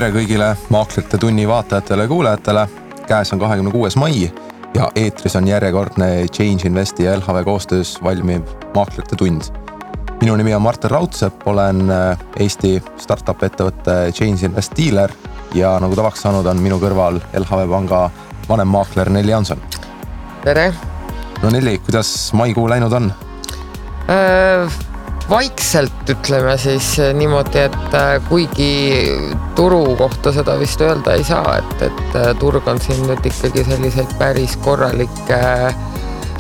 Tere kõigile Maaklerite tunni vaatajatele ja kuulajatele. Käes on 26. mai ja eetris on järjekordne Change Investi ja LHV koostöös valmiv Maaklerite tund. Minu nimi on Martin Raudsepp, olen Eesti startup ettevõtte Change Invest dealer ja nagu tavaks saanud on minu kõrval LHV panga vanem maakler Nelli Jaanson. Tere! No Nelli, kuidas maikuu läinud on? Vaikselt ütleme siis niimoodi, et kuigi turu kohta seda vist öelda ei saa, et turg on siin nüüd ikkagi selliseid päris korralikke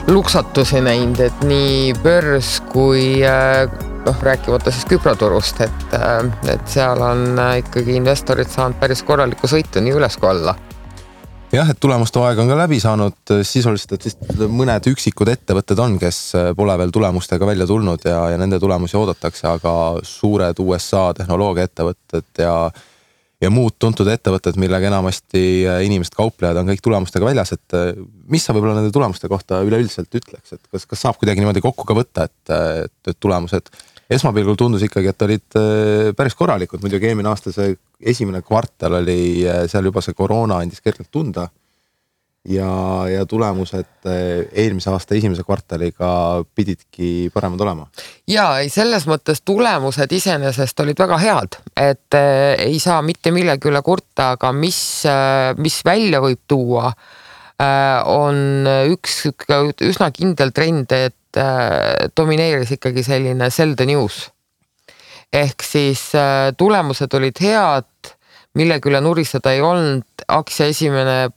luksatusi näinud, et nii börs kui rääkimata siis küproturust, et seal on ikkagi investorid saanud päris korralikku sõitu nii üles kui alla. Jah, et tulemuste aeg on ka läbi saanud sisuliselt, et siis mõned üksikud ettevõtted on, kes pole veel tulemustega välja tulnud ja nende tulemusi oodatakse, aga suured USA tehnoloogia ettevõtted ja muud tuntud ettevõtted, millega enamasti inimesed kauplejad on kõik tulemustega väljas, et mis sa võib-olla nende tulemuste kohta üleüldiselt ütleks, et kas saab kuidagi niimoodi kokku ka võtta, et tulemused esmapilgul tundus ikkagi, et olid päris korralikud, muidugi eelmine aasta see esimene kvartal oli seal juba see koroona andis kergelt tunda ja tulemused eelmise aasta esimese kvartaliga pididki paremad olema. Ja selles mõttes tulemused iseenesest olid väga head, et ei saa mitte millegi üle kurta, aga mis välja võib tuua, on üks üsna kindel trend, et domineeris ikkagi selline sell the news. Ehk siis tulemused olid head, millegi üle nuriseda ei olnud, aktsia esimene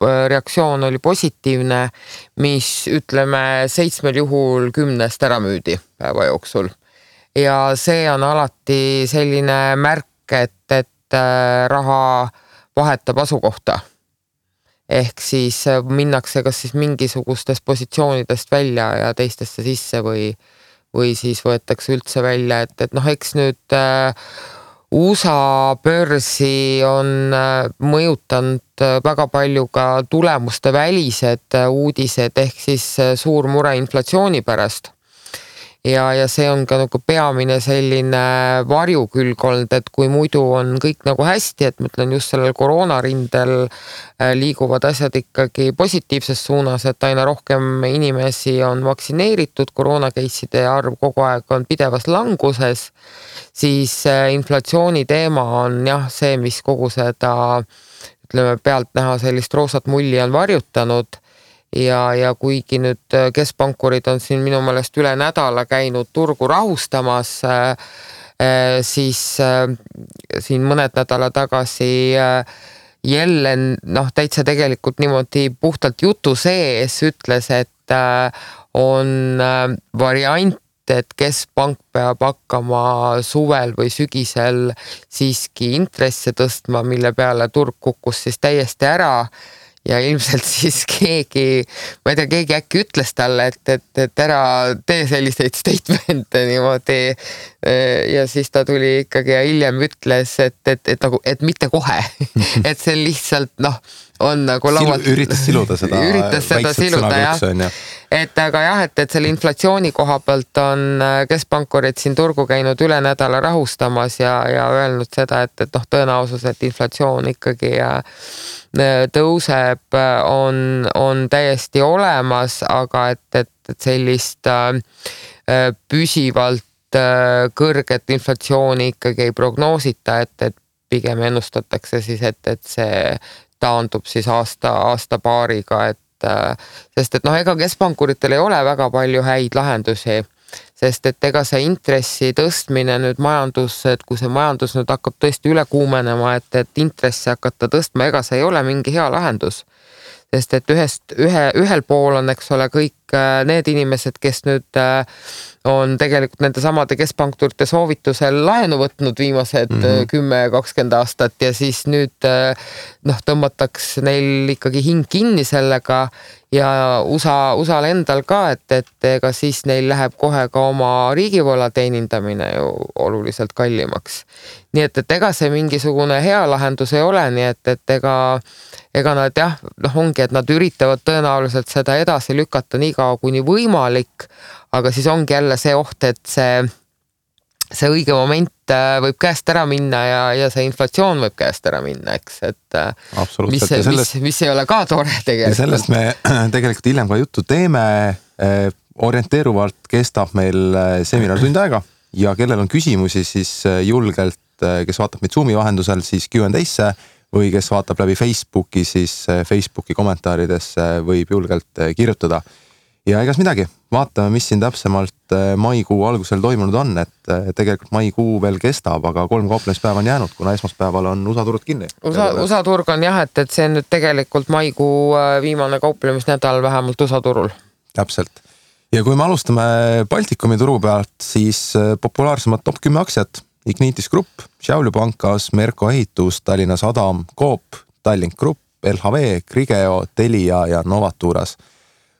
reaktsioon oli positiivne, mis ütleme 7 juhul 10 ära müüdi päeva jooksul. Ja see on alati selline märk, et raha vahetab asukohta. Ehk siis minnakse kas siis mingisugustest positsioonidest välja ja teistesse sisse või siis võetakse üldse välja, et eks nüüd USA börsi on mõjutanud väga palju ka tulemuste välised uudised ehk siis suur mure inflatsiooni pärast. Ja see on ka nagu peamine selline varjukülg olnud, et kui muidu on kõik nagu hästi, et ma ütlen just sellel koroonarindel liiguvad asjad ikkagi positiivses suunas, et aina rohkem inimesi on vaktsineeritud, koroonakeisside arv kogu aeg on pidevas languses, siis inflatsiooni teema on jah see, mis kogu seda ütleme pealt näha sellist roosat mulli on varjutanud. Ja kuigi nüüd keskpankurid on siin minu meelest üle nädala käinud turgu rahustamas, siis siin mõned nädala tagasi Jellen täitsa tegelikult niimoodi puhtalt jutu sees ütles, et on variant, et keskpank peab hakkama suvel või sügisel siiski intresse tõstma, mille peale turg kukkus siis täiesti ära. Ja ilmselt siis keegi äkki ütles talle, et ära tee selliseid statemente niimoodi ja siis ta tuli ikkagi ja hiljem ütles, et mitte kohe, et see lihtsalt on nagu laualt... Üritas siluda seda jah. Et aga jah, et selle inflatsiooni koha pealt on keskpankurid siin turgu käinud üle nädala rahustamas ja öelnud seda, et tõenäosus, et inflatsioon ikkagi tõuseb, on täiesti olemas, aga et sellist püsivalt kõrget inflatsiooni ikkagi ei prognoosita, et pigem ennustatakse siis, et see taandub siis aasta paariga, sest ega keskpankuritel ei ole väga palju häid lahendusi, sest et ega see intressi tõstmine nüüd et kui see majandus nüüd hakkab tõesti üle kuumenema, et intressi hakata tõstma, ega see ei ole mingi hea lahendus. Sest et ühel pool on, eks ole, kõik need inimesed, kes nüüd on tegelikult nende samade keskpankurite soovitusel laenu võtnud viimased 10-20 aastat ja siis nüüd tõmmataks neil ikkagi hing kinni sellega ja USA-l endal ka, et ega siis neil läheb kohe ka oma riigivõla teenindamine ju oluliselt kallimaks. Nii et ega see mingisugune hea lahendus ei ole, nii et ega nad ongi, et nad üritavad tõenäoliselt seda edasi lükata nii kaua kuni võimalik, aga siis ongi jälle see oht, et see see õige moment võib käest ära minna ja see inflatsioon võib käest ära minna, eks, et mis ei ole ka tore tegelikult. Ja sellest me tegelikult hiljem ka juttu teeme. Orienteeruvalt kestab meil seminar tund aega ja kellel on küsimusi, siis julgelt, kes vaatab meid Zoomi vahendusel, siis Q&Asse või kes vaatab läbi Facebooki, siis Facebooki kommentaaridesse võib julgelt kirjutada. Ja egas midagi, vaatame, mis siin täpsemalt maikuu algusel toimunud on, et tegelikult maikuu veel kestab, aga 3 kauplemispäeva on jäänud, kuna esmaspäeval on USA turud kinni. USA turg on jah, et see on nüüd tegelikult maikuu viimane kauplemisnädal vähemalt USA turul. Täpselt. Ja kui me alustame Baltikumi turu pealt, siis populaarsemad top 10 aktsiat: Ignitis Grupp, Šiauliu Pankas, Merko Ehitus, Tallinna Sadam, Coop, Tallink Grupp, LHV, Grigeo, Telia ja Novaturas.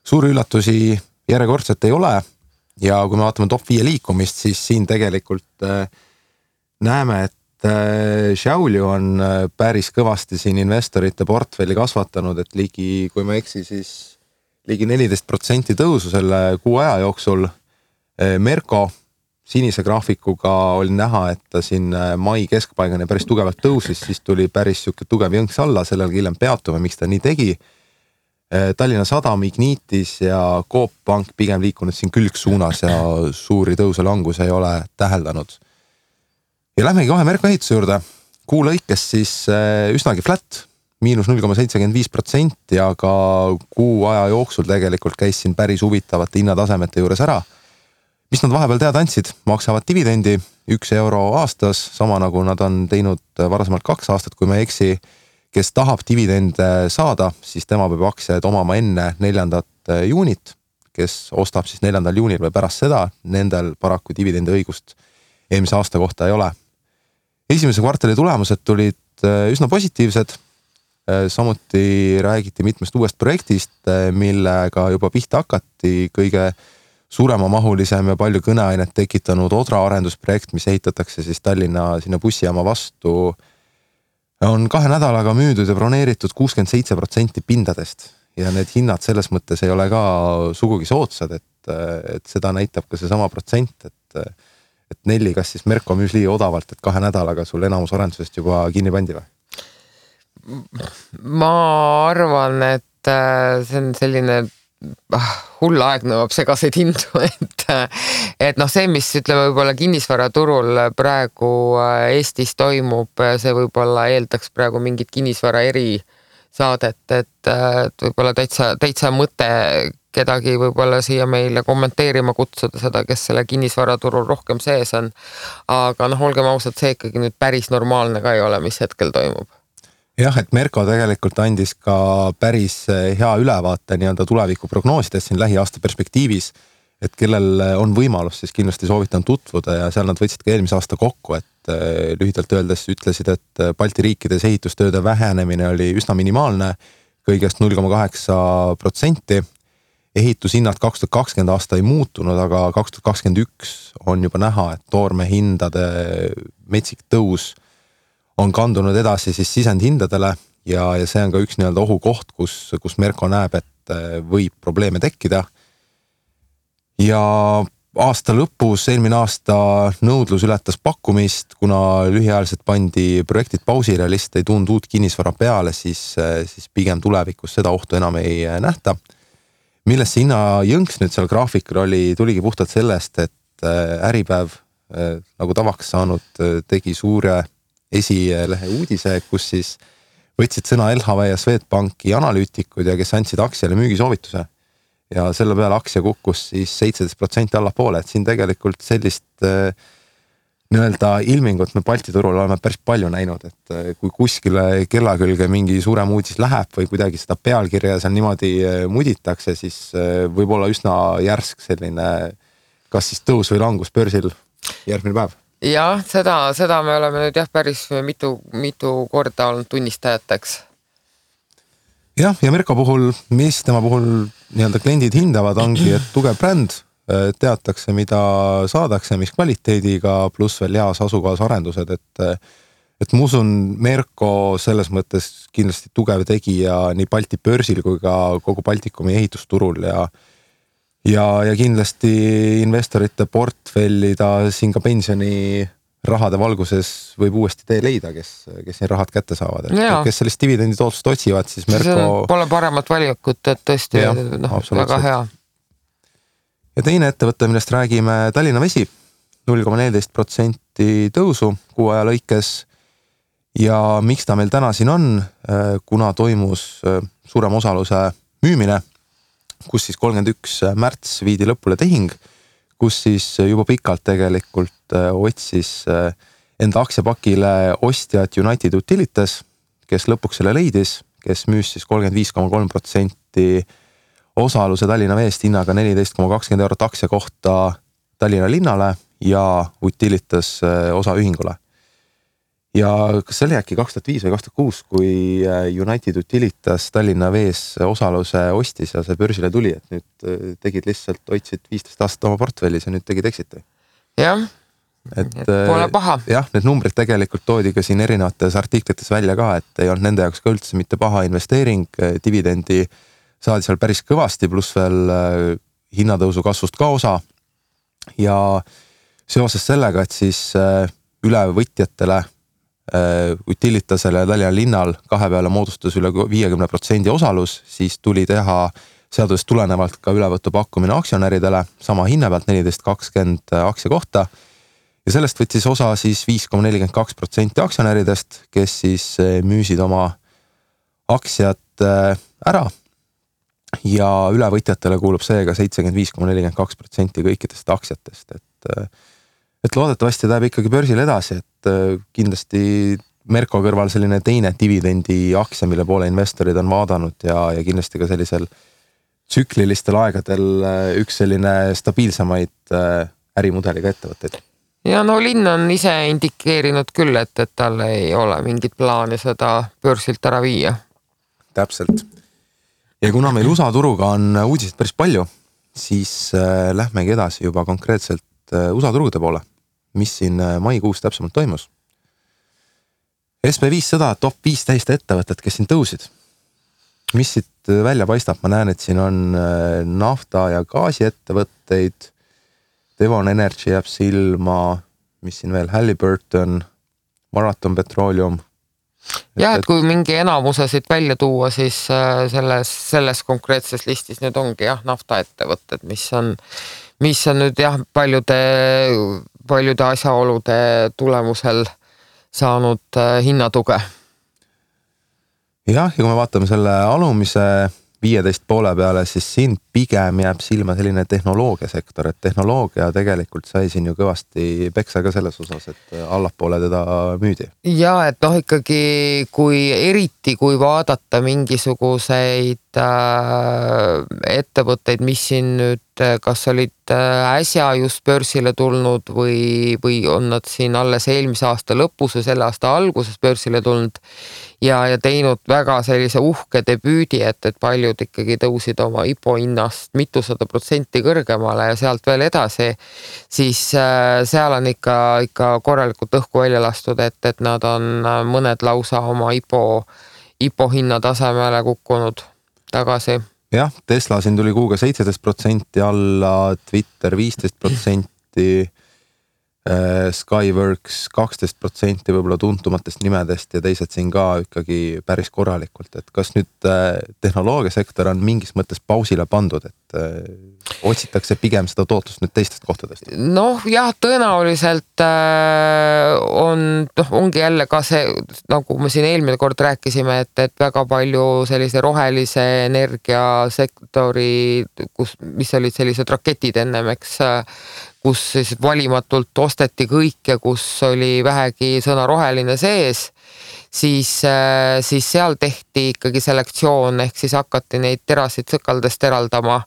Suuri üllatusi järjekordselt ei ole ja kui me vaatame top 5 liikumist, siis siin tegelikult näeme, et Šiauliu on päris kõvasti siin investorite portfelli kasvatanud, et kui ma eksi, siis ligi 14% tõusu selle kuu aja jooksul. Merko sinise graafikuga oli näha, et ta siin mai keskpaigani päris tugevalt tõusis, siis tuli päris tugev jõnks alla, sellel hiljem peatume, miks ta nii tegi. Tallinna Sadam, Ignitis ja Coop Pank pigem liikunud siin külgsuunas ja suuri tõuse langus ei ole täheldanud. Ja lähmegi kohe Merko Ehituse juurde. Kuu lõikes siis üsnagi flat, -0,75% ja ka kuu aja jooksul tegelikult käis siin päris huvitavate hinnatasemete juures ära. Mis nad vahepeal teada andsid? Maksavad dividendi 1 euro aastas, sama nagu nad on teinud varasemalt 2 aastat, kui ma ei eksi. Kes tahab dividende saada, siis tema peab aktsiaid omama enne 4. juunit. Kes ostab siis 4. juunil või pärast seda, nendel paraku dividendi õigust eelmise aasta kohta ei ole. Esimese kvartali tulemused tulid üsna positiivsed. Samuti räägiti mitmest uuest projektist, millega juba pihta hakati. Kõige suuremamahulisem ja palju kõneainet tekitanud Odra arendusprojekt, mis ehitatakse siis Tallinna sinna bussijaama vastu, on 2 nädalaga müüdud ja broneeritud 67% pindadest. Ja need hinnad selles mõttes ei ole ka sugugi soodsad, et seda näitab ka see sama protsent, et Nelli, kas siis Merko müüs liiga odavalt, et 2 nädalaga sul enamus arendusest juba kinni pandi või? Ma arvan, et see on selline hull aeg nõuab segaseid hindu, et see, mis ütleme võib-olla kinnisvaraturul praegu Eestis toimub, see võib-olla eeldaks praegu mingit kinnisvara erisaadet, et võib-olla täitsa mõte kedagi võib-olla siia meile kommenteerima kutsuda seda, kes selle kinnisvaraturul rohkem sees on. Aga olgem ausad, see ikkagi nüüd päris normaalne ka ei ole, mis hetkel toimub. Jah, et Merko tegelikult andis ka päris hea ülevaate nii-öelda tuleviku prognoosides siin lähiaasta perspektiivis, et kellel on võimalus, siis kindlasti soovitan tutvuda ja seal nad võtsid ka eelmise aasta kokku, et lühidalt öeldes ütlesid, et Balti riikides ehitustööde vähenemine oli üsna minimaalne, kõigest 0,8%. Ehitushinnad 2020 aasta ei muutunud, aga 2021 on juba näha, et toorme hindade metsik tõus on kandunud edasi siis sisendhindadele ja see on ka üks nii-öelda ohukoht, kus Merko näeb, et võib probleeme tekkida. Ja aasta lõpus, eelmine aasta nõudlus ületas pakkumist, kuna lühiajaliselt pandi projektid pausile ja lihtsalt ei tulnud uut kinnisvara peale, siis pigem tulevikus seda ohtu enam ei nähta. Millest see hinna jõnks nüüd seal graafikul tuligi puhtalt sellest, et Äripäev nagu tavaks saanud tegi suure esilehe uudise, kus siis võtsid sõna LHV ja Swedbanki analüütikud ja kes andsid aktsiale müügisoovituse. Ja selle peale aktsia kukkus siis 17% allapoole, et siin tegelikult sellist nii-öelda ilmingut me Balti turul oleme päris palju näinud, et kui kuskile kella külge mingi suurem uudis läheb või kuidagi seda pealkirja seal niimoodi muditakse, siis võib olla üsna järsk selline kas siis tõus või langus börsil järgmine päev. Jah, seda me oleme nüüd päris mitu korda olnud tunnistajateks. Jah, ja Merko puhul, mis tema puhul nii-öelda kliendid hindavad, ongi, et tugev bränd, teatakse, mida saadakse, mis kvaliteediga, pluss veel heas asukohas arendused, et ma usun, Merko selles mõttes kindlasti tugev tegija nii Balti börsil kui ka kogu Baltikumi ehitusturul ja ja kindlasti investorite portfelli ta siin ka pensioni rahade valguses võib uuesti tee leida, kes need rahad kätte saavad. Kes sellist dividendi tootlust otsivad, siis Merko... Pole paremat valikut, et tõesti väga hea. Ja teine ettevõte, millest räägime, Tallinna Vesi, 0,14% tõusu kuu aja lõikes. Ja miks ta meil täna siin on, kuna toimus suurem osaluse müümine, kus siis 31. märts viidi lõpule tehing, kus siis juba pikalt tegelikult otsis enda aktsiapakile ostjad United Utilities, kes lõpuks selle leidis, kes müüs siis 35,3% osaluse Tallinna Veest hinnaga 14,20 € aktsia kohta Tallinna linnale ja Utilities osaühingule. Ja kas see oli äkki 2005 või 2006, kui United Utilities Tallinna Vees osaluse ostis ja see börsile tuli, et nüüd tegid lihtsalt, hoidsid 15 aastat oma portfellis ja nüüd tegid exiti. Jah, et pole paha. Jah, need numbrid tegelikult toodi ka siin erinevates artiklites välja ka, et ei olnud nende jaoks ka üldse mitte paha investeering, dividendi saadi seal päris kõvasti, pluss veel hinnatõusu kasvust ka osa. Ja seoses sellega, et siis ülevõtjatele Utilitasele ja Tallinna linnal kahe peale moodustas üle 50% osalus, siis tuli teha seadusest tulenevalt ka ülevõttu pakkumine aktsionäridele sama hinna pealt 14,20 aktsia kohta. Ja sellest võttis osa siis 5,42% aktsionäridest, kes siis müüsid oma aktsiat ära ja ülevõtjatele kuulub seega 75,42% kõikidest aktsiatest, et loodetavasti läheb ikkagi börsil edasi, et kindlasti Merko kõrval selline teine dividendi aktsia, mille poole investorid on vaadanud ja kindlasti ka sellisel tsüklilistel aegadel üks selline stabiilsemaid ärimudeliga ettevõtteid. Ja no linn on ise indikeerinud küll, et tal ei ole mingit plaani seda börsilt ära viia. Täpselt. Ja kuna meil USA turuga on uudiseid päris palju, siis lähmegi edasi juba konkreetselt USA turude poole, mis siin maikuus täpsemalt toimus. SB500 top 15 ettevõtted, kes siin tõusid. Mis siit välja paistab? Ma näen, et siin on nafta- ja gaasiettevõtteid, Devon Energy jääb silma, mis siin veel, Halliburton, Marathon Petroleum. Ja, et kui mingi enamuse siit välja tuua, siis selles konkreetses listis nüüd ongi naftaettevõtted, mis on nüüd paljude asjaolude tulemusel saanud hinnatuge. Jah, ja kui me vaatame selle alumise 15 poole peale, siis siin pigem jääb silma selline tehnoloogiasektor, et tehnoloogia tegelikult sai siin ju kõvasti peksa ka selles osas, et allapoole teda müüdi. Ja, et ikkagi eriti kui vaadata mingisuguseid ettevõtteid, mis siin nüüd kas olid äsja just börsile tulnud või on nad siin alles eelmise aasta lõpus või selle aasta alguses börsile tulnud ja teinud väga sellise uhke debüüdi, et paljud ikkagi tõusid oma IPO hinnast mitusada % kõrgemale ja sealt veel edasi, siis seal on ikka korralikult õhku välja lastud, et nad on mõned lausa oma IPO hinna tasemele kukkunud tagasi. Jah, Tesla siin tuli kuuga 17% alla, Twitter 15%, Skyworks 12% võib-olla tuntumatest nimedest ja teised siin ka ikkagi päris korralikult, et kas nüüd tehnoloogiasektor on mingis mõttes pausile pandud, et otsitakse pigem seda tootlust nüüd teistest kohtadest? Noh, jah, tõenäoliselt ongi jälle ka see, nagu me siin eelmine kord rääkisime, et väga palju sellise rohelise energiasektori, mis olid sellised raketid ennem, kus siis valimatult osteti kõik ja kus oli vähegi sõna roheline sees, siis seal tehti ikkagi selektsioon, ehk siis hakati neid terasid sõkaldest eraldama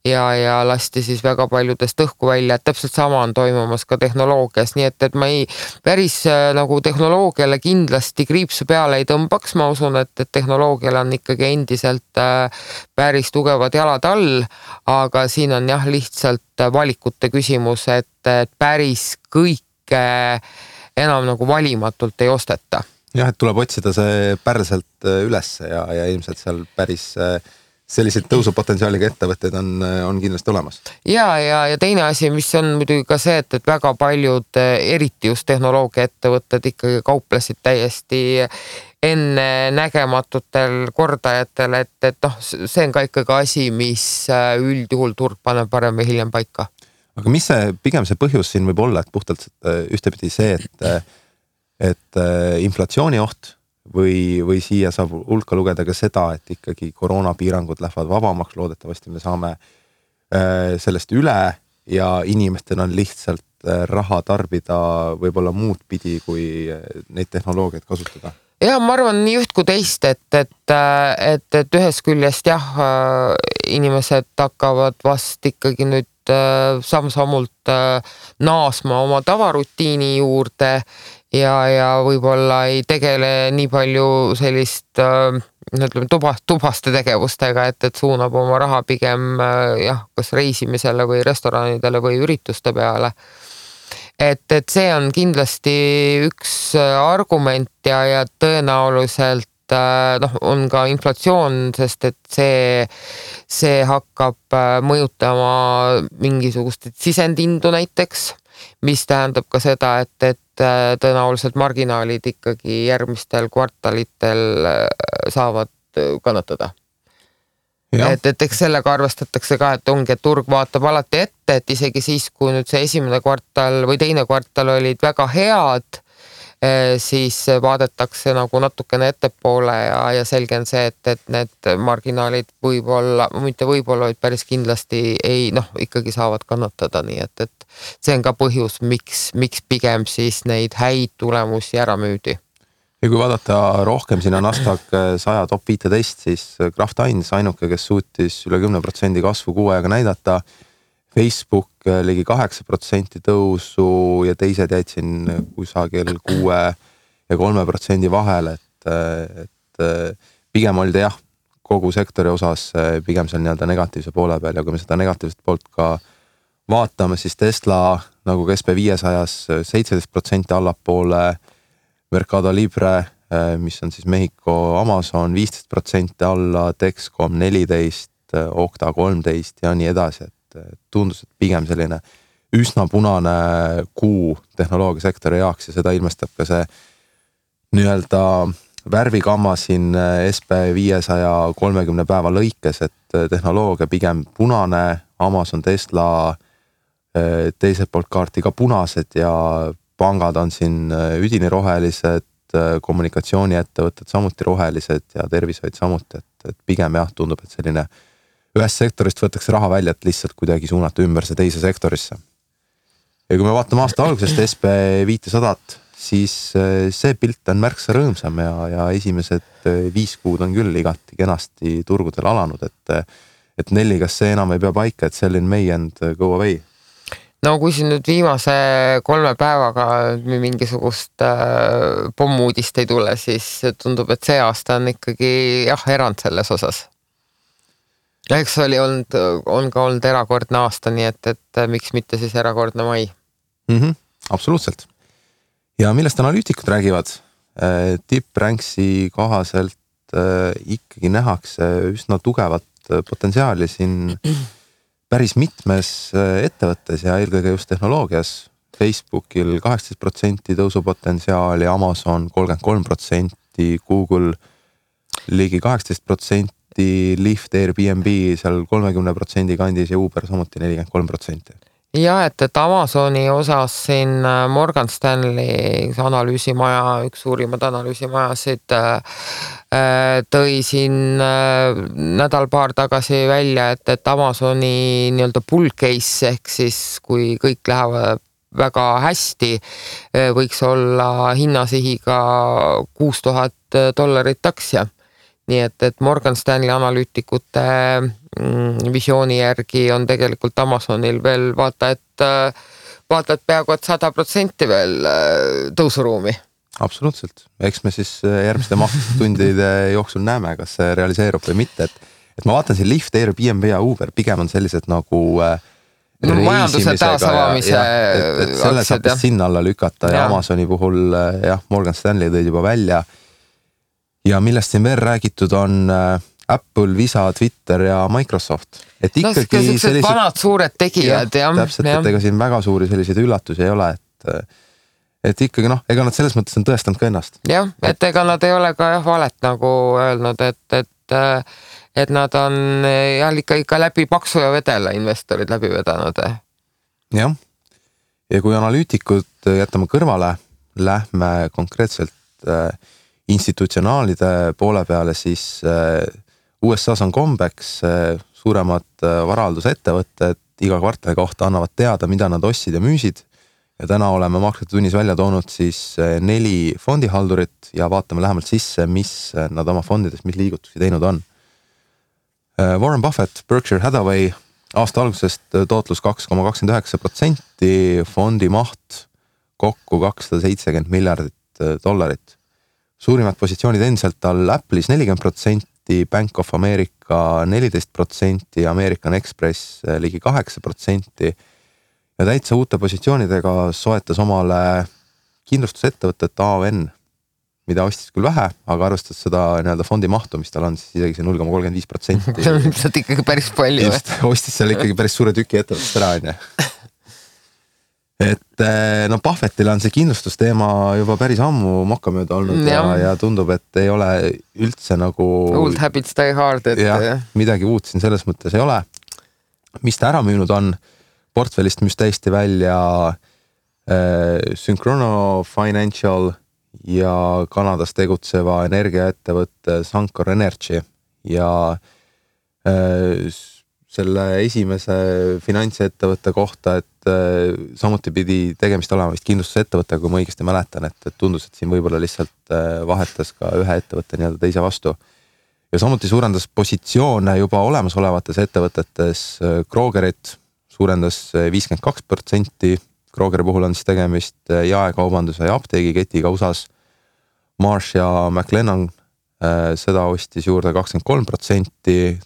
ja lasti siis väga paljudest õhku välja, et täpselt sama on toimumas ka tehnoloogias, nii et ma ei päris nagu tehnoloogiale kindlasti kriipsu peale ei tõmbaks, ma usun, et tehnoloogial on ikkagi endiselt päris tugevad jalad all, aga siin on jah lihtsalt valikute küsimus, et päris kõike enam nagu valimatult ei osteta. Jah, et tuleb otsida see pärselt üles ja ilmselt seal päris selliseid tõusupotentsiaaliga ettevõtteid on kindlasti olemas. Ja teine asi, mis on muidugi ka see, et väga paljud, eriti just tehnoloogia ettevõtted ikkagi kauplesid täiesti enne nägematutel kordajatel, et noh, see on ka ikkagi asi, mis üldjuhul turg paneb parem või hiljem paika. Aga mis pigem see põhjus siin võib olla, et puhtalt ühtepidi see, et inflatsiooni oht või siia saab hulka lugeda ka seda, et ikkagi koroonapiirangud lähevad vabamaks, loodetavasti me saame sellest üle ja inimestel on lihtsalt raha tarbida võib-olla muud pidi, kui neid tehnoloogiaid kasutada. Ja ma arvan nii üht kui teist, et ühest küljest inimesed hakkavad vast ikkagi nüüd samm-sammult naasma oma tavarutiini juurde ja võib-olla ei tegele nii palju sellist tubaste tegevustega, et suunab oma raha pigem kas reisimisele või restoranidele või ürituste peale. Et see on kindlasti üks argument ja tõenäoliselt on ka inflatsioon, sest et see hakkab mõjutama mingisugust sisendindu näiteks, mis tähendab ka seda, et tõenäoliselt marginaalid ikkagi järgmistel kvartalitel saavad kannatada. Et eks sellega arvestatakse ka, et ongi, et turg vaatab alati ette, et isegi siis, kui nüüd see esimene kvartal või teine kvartal olid väga head, siis vaadatakse nagu natukene ettepoole ja selge on see, et need marginaalid võib-olla, mitte võib-olla, vaid päris kindlasti ikkagi saavad kannatada, nii et see on ka põhjus, miks pigem siis neid häid tulemusi ära müüdi. Ja kui vaadata rohkem sinna Nasdaq 100 top 15, siis Kraft Heinz ainuke, kes suutis üle 10% kasvu kuu ajaga näidata, Facebook ligi 8% tõusu ja teised jäid siin kusagil 6 ja 3% vahel, et pigem olid kogu sektori osas pigem seal nii-öelda negatiivse poole peal ja kui me seda negatiivset poolt ka vaatame, siis Tesla nagu SP500 17% allapoole, Mercado Libre, mis on siis Mehhiko Amazon 15% alla, Dexcom 14%, Okta 13% ja nii edasi, et tundus, et pigem selline üsna punane kuu tehnoloogiasektori jaoks ja seda ilmestab ka see nii-öelda värvikamma siin SP500 30 päeva lõikes, et tehnoloogia pigem punane, Amazon, Tesla teiselt poolt kaarti ka punased ja pangad on siin üdini rohelised, kommunikatsiooniettevõtted samuti rohelised ja tervishoid samuti, et pigem tundub, et selline ühest sektorist võetakse raha välja, et lihtsalt kuidagi suunata ümber see teise sektorisse. Ja kui me vaatame aasta algusest SP500, siis see pilt on märksa rõõmsam ja esimesed 5 kuud on küll igati kenasti turgudel alanud, et Nelli, kas see enam ei pea paika, et selline may and go away? No kui siin nüüd viimase 3 päevaga mingisugust pommuudist ei tule, siis tundub, et see aasta on ikkagi erand selles osas. Ja eks on ka olnud erakordne aasta, nii et miks mitte siis erakordne mai? Absoluutselt. Ja millest analüütikud räägivad? Tipranksi kohaselt ikkagi nähakse üsna tugevat potentsiaali siin päris mitmes ettevõttes ja eelkõige just tehnoloogias. Facebookil 18% tõusupotentsiaali, Amazon 33%, Google ligi 18%, Lyft, Airbnb seal 30% kandis ja Uber samuti 43%. Ja, et Amazoni osas siin Morgan Stanley analüüsimaja, üks suurimad analüüsimajasid tõi siin nädal-paar tagasi välja, et Amazoni nii-öelda bull case ehk siis kui kõik lähevad väga hästi, võiks olla hinnasihiga $6,000 aktsia. Nii et Morgan Stanley analüütikute visiooni järgi on tegelikult Amazonil veel vaata, et peaaegu 100% veel tõusuruumi. Absoluutselt. Eks me siis järgmiste tundide jooksul näeme, kas see realiseerub või mitte. Et ma vaatan siin Lyft, Airbnb ja Uber pigem on sellised nagu majanduse taasavamise et selle saab sinna alla lükata ja Amazoni puhul Morgan Stanley tõid juba välja. Ja millest siin veel räägitud on Apple, Visa, Twitter ja Microsoft. Et ikkagi sellised vanad suured tegijad. Täpselt, et ega siin väga suuri selliseid üllatusi ei ole, et ikkagi ega nad selles mõttes on tõestanud ka ennast. Jah, et ega nad ei ole ka valet nagu öelnud, et nad on ikka läbi paksu ja vedela investorid läbi vedanud. Jah, ja kui analüütikud jätame kõrvale, lähme konkreetselt institutsionaalide poole peale, siis USA's on kombeks suuremad varahaldusettevõtted iga kvartali kohta annavad teada, mida nad ostsid ja müüsid. Ja täna oleme Makrite tunnis välja toonud siis 4 fondihaldurit ja vaatame lähemalt sisse, mis nad oma fondides, mis liigutusi teinud on. Warren Buffett, Berkshire Hathaway, aasta algusest tootlus 2,29%, fondi maht kokku $270 miljardit. Suurimad positsioonid endiselt all Apple'is 40%, Bank of America 14%, American Express ligi 8% ja täitsa uute positsioonidega soetas omale kindlustusettevõtet AON, mida ostis küll vähe, aga arvestades seda fondi mahtu, mis tal on, siis isegi see 0,35%. See on ikkagi päris palju. Just, ostis seal ikkagi päris suure tüki ettevõttest ära, on. Et Buffettil on see kindlustusteema juba päris ammu mokkamööda olnud ja tundub, et ei ole üldse nagu... Old habits die hard. Midagi uut siin selles mõttes ei ole. Mis ta ära müünud on, portfellist müüs täiesti välja Synchrono Financial ja Kanadas tegutseva energiaettevõtte Suncor Energy ja selle esimese finantsettevõtte kohta, et samuti pidi tegemist olema vist kindlustusettevõttega, kui ma õigesti mäletan, et tundus, et siin võib-olla lihtsalt vahetas ka ühe ettevõtte teise vastu. Ja samuti suurendas positsioone juba olemasolevates ettevõtetes. Krogerit suurendas 52%. Krogeri puhul on siis tegemist jaekaubanduse ja apteegiketiga USAs. Marsh ja McLennan seda ostis juurde 23%.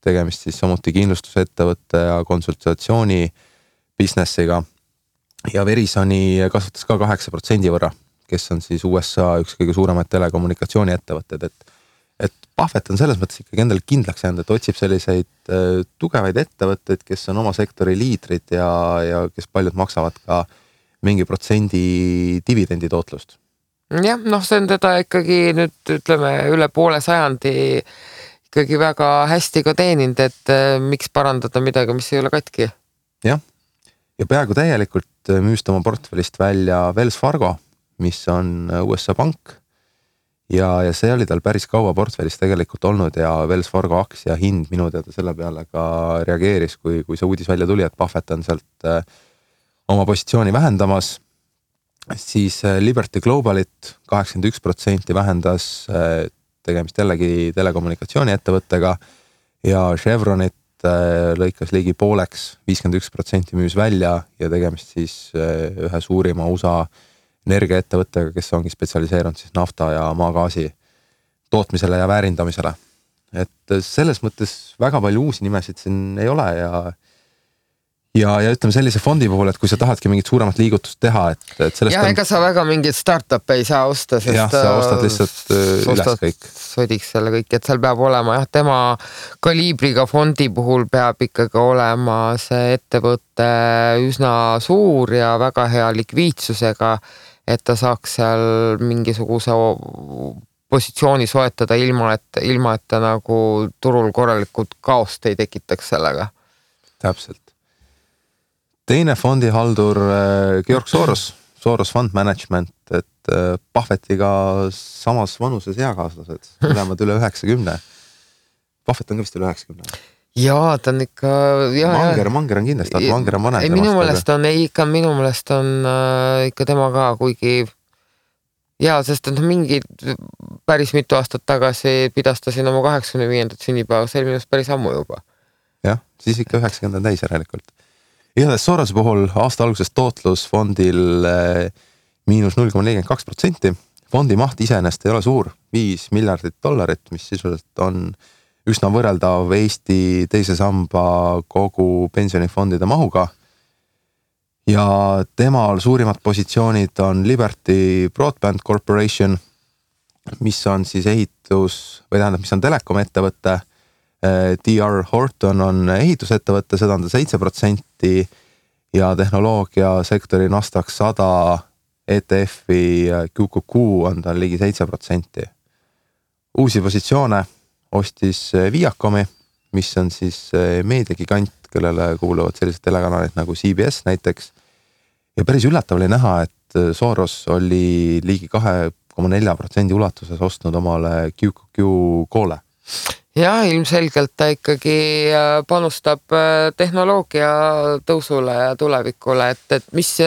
Tegemist siis samuti kindlustusettevõtte ja konsultatsiooni businessiga. Ja Verisoni kasvatas ka 8% võrra, kes on siis USA üks kõige suuremaid telekommunikatsiooni ettevõtted. Et Buffett on selles mõttes ikkagi endale kindlaks jäänud, et otsib selliseid tugevaid ettevõtteid, kes on oma sektori liidrid ja kes paljud maksavad ka mingi protsendi dividendi tootlust. Jah, see on teda ikkagi nüüd ütleme üle poole sajandi ikkagi väga hästi ka teeninud, et miks parandada midagi, mis ei ole katki. Jah, ja peaaegu täielikult müüst oma portfellist välja Wells Fargo, mis on USA pank ja see oli tal päris kaua portfellis tegelikult olnud ja Wells Fargo aktsia hind minu teada selle peale ka reageeris, kui see uudis välja tuli, et Buffett on sealt oma positsiooni vähendamas, siis Liberty Globalit 81% vähendas tegemist jällegi telekommunikatsiooni ettevõttega ja Chevronit lõikas ligi pooleks, 51% müüs välja ja tegemist siis ühe suurima USA energiaettevõttega, kes ongi spetsialiseerunud siis nafta ja maagaasi tootmisele ja väärindamisele. Et selles mõttes väga palju uusi nimesid siin ei ole ja ütleme sellise fondi puhul, et kui sa tahadki mingit suuremat liigutust teha, et sellest ja ega sa väga mingit startup ei saa osta, sest sa ostad lihtsalt üles kõik. Sodiks selle kõik, et seal peab olema tema kaliibriga fondi puhul peab ikkagi olema see ettevõte üsna suur ja väga hea likviidsusega, et ta saaks seal mingisuguse positsiooni soetada ilma, et ta nagu turul korralikult kaost ei tekitaks sellega. Täpselt. Teine fondihaldur Georg Soros Fund Management, et Buffettiga samas vanuses eakaaslased, mõlemad üle 90. Buffett on ka vist üle 90. Jaa, ta on ikka... Manger on kindlasti, aga Manger on vanem. Minu meelest on ikka tema ka, kuigi sest mingi päris mitu aastat tagasi pidastasin oma 85. sünnipäeva, see oli minust päris ammu juba. Jah, siis ikka 90 täis järelikult. Igatahes Sorose puhul aasta algusest tootlus fondil miinus 0,42%. Fondi maht iseenest ei ole suur, $5 miljardit, mis sisuliselt on üsna võrreldav Eesti teise samba kogu pensionifondide mahuga. Ja temal suurimad positsioonid on Liberty Broadband Corporation, mis on siis mis on telekom ettevõtte D.R. Horton on ehitusettevõtte, seda on ta 7% ja tehnoloogiasektori Nasdaq 100 ETF-i QQQ on tal ligi 7%. Uusi positsioone ostis Viacomi, mis on siis meediagigant, kellele kuuluvad sellised telekanalid nagu CBS näiteks. Ja päris üllatav oli näha, et Soros oli ligi 2,4% ulatuses ostnud omale QQQ koole. Jah, ilmselgelt ta ikkagi panustab tehnoloogia tõusule ja tulevikule, et mis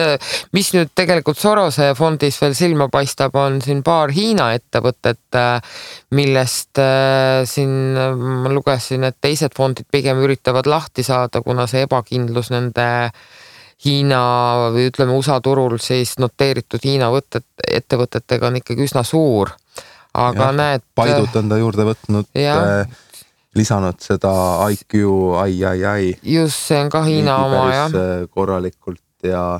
nüüd tegelikult Sorose fondis veel silma paistab, on siin paar Hiina ettevõtet, millest siin ma lugesin, et teised fondid pigem üritavad lahti saada, kuna see ebakindlus nende Hiina või ütleme USA turul siis noteeritud Hiina ettevõtetega on ikkagi üsna suur. Aga näed... Paidut on ta juurde võtnud, lisanud seda IQ, II. Just, see on ka Hiina oma, jah. Korralikult ja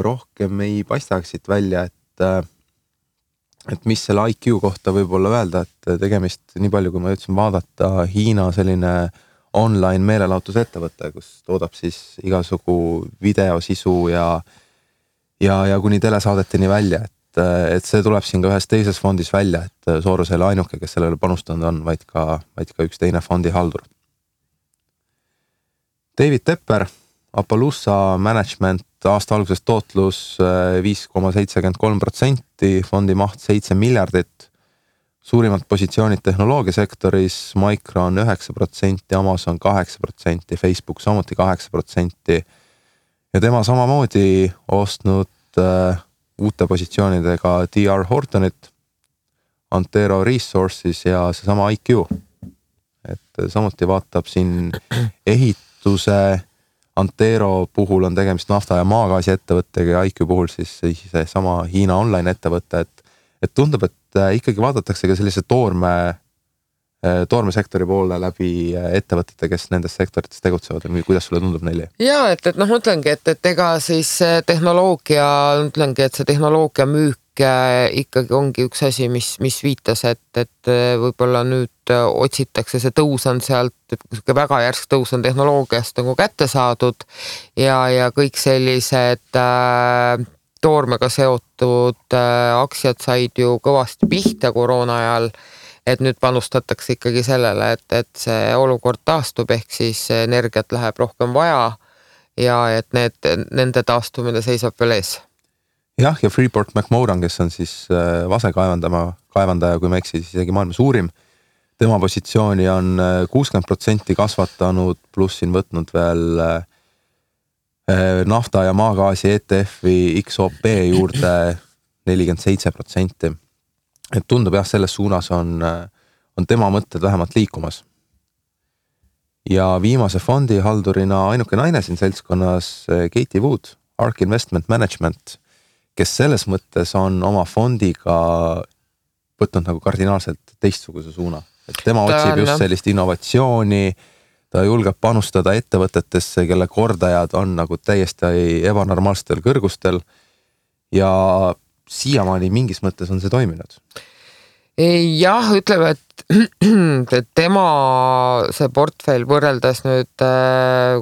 rohkem ei paistaks siit välja, et mis selle IQ kohta võib olla öelda, et tegemist nii palju, kui ma ütlesin vaadata Hiina selline online meelelahutusettevõte, kus toodab siis igasugu videosisu ja kuni telesaadeteni välja, et see tuleb siin ka ühes teises fondis välja, et Soros ei ole ainuke, kes sellele panustanud on, vaid ka üks teine fondihaldur. David Tepper, Appaloosa Management, aasta alguses tootlus 5,73%, fondi maht 7 miljardit, suurimad positsioonid tehnoloogiasektoris, Micron 9%, Amazon 8%, Facebook samuti 8% ja tema samamoodi ostnud uute positsioonidega D.R. Hortonit, Antero Resources ja seesama IQ. Et samuti vaatab siin ehituse, Antero puhul on tegemist nafta- ja maagaasi ettevõttega ja IQ puhul siis sama Hiina online ettevõte, et tundub, et ikkagi vaadatakse ka sellise toormesektori poole läbi ettevõtete, kes nendes sektorites tegutsevad või kuidas sulle tundub neile? Jaa, et mõtlengi, et ega siis tehnoloogia, ütlengi, et see tehnoloogia müük ikkagi ongi üks asi, mis viitas, et võib-olla nüüd otsitakse, see tõus on sealt, et väga järsk tõus on tehnoloogiast nagu kätte saadud ja kõik sellised toormega seotud aktsiad said ju kõvasti pihta koroona ajal, et nüüd panustatakse ikkagi sellele, et see olukord taastub, ehk siis energiat läheb rohkem vaja ja et nende taastumine seisab veel ees. Jah, ja Freeport McMoran, kes on siis vasekaevandaja, kui ma eksi, siis isegi maailma suurim. Tema positsiooni on 60% kasvatanud, pluss siin võtnud veel nafta- ja maagaasi ETF-i XOP juurde 47%. Et tundub jah, selles suunas on tema mõtted vähemalt liikumas. Ja viimase fondi haldurina ainuke naine siin seltskonnas Katie Wood, ARK Investment Management, kes selles mõttes on oma fondiga võtnud nagu kardinaalselt teistsuguse suuna. Et tema otsib just sellist innovatsiooni, ta julgeb panustada ettevõtetesse, kelle kordajad on nagu täiesti ebanormaalsetel kõrgustel ja siiamaani mingis mõttes on see toiminud. Jah, ütleme, et tema see portfell võrreldes nüüd,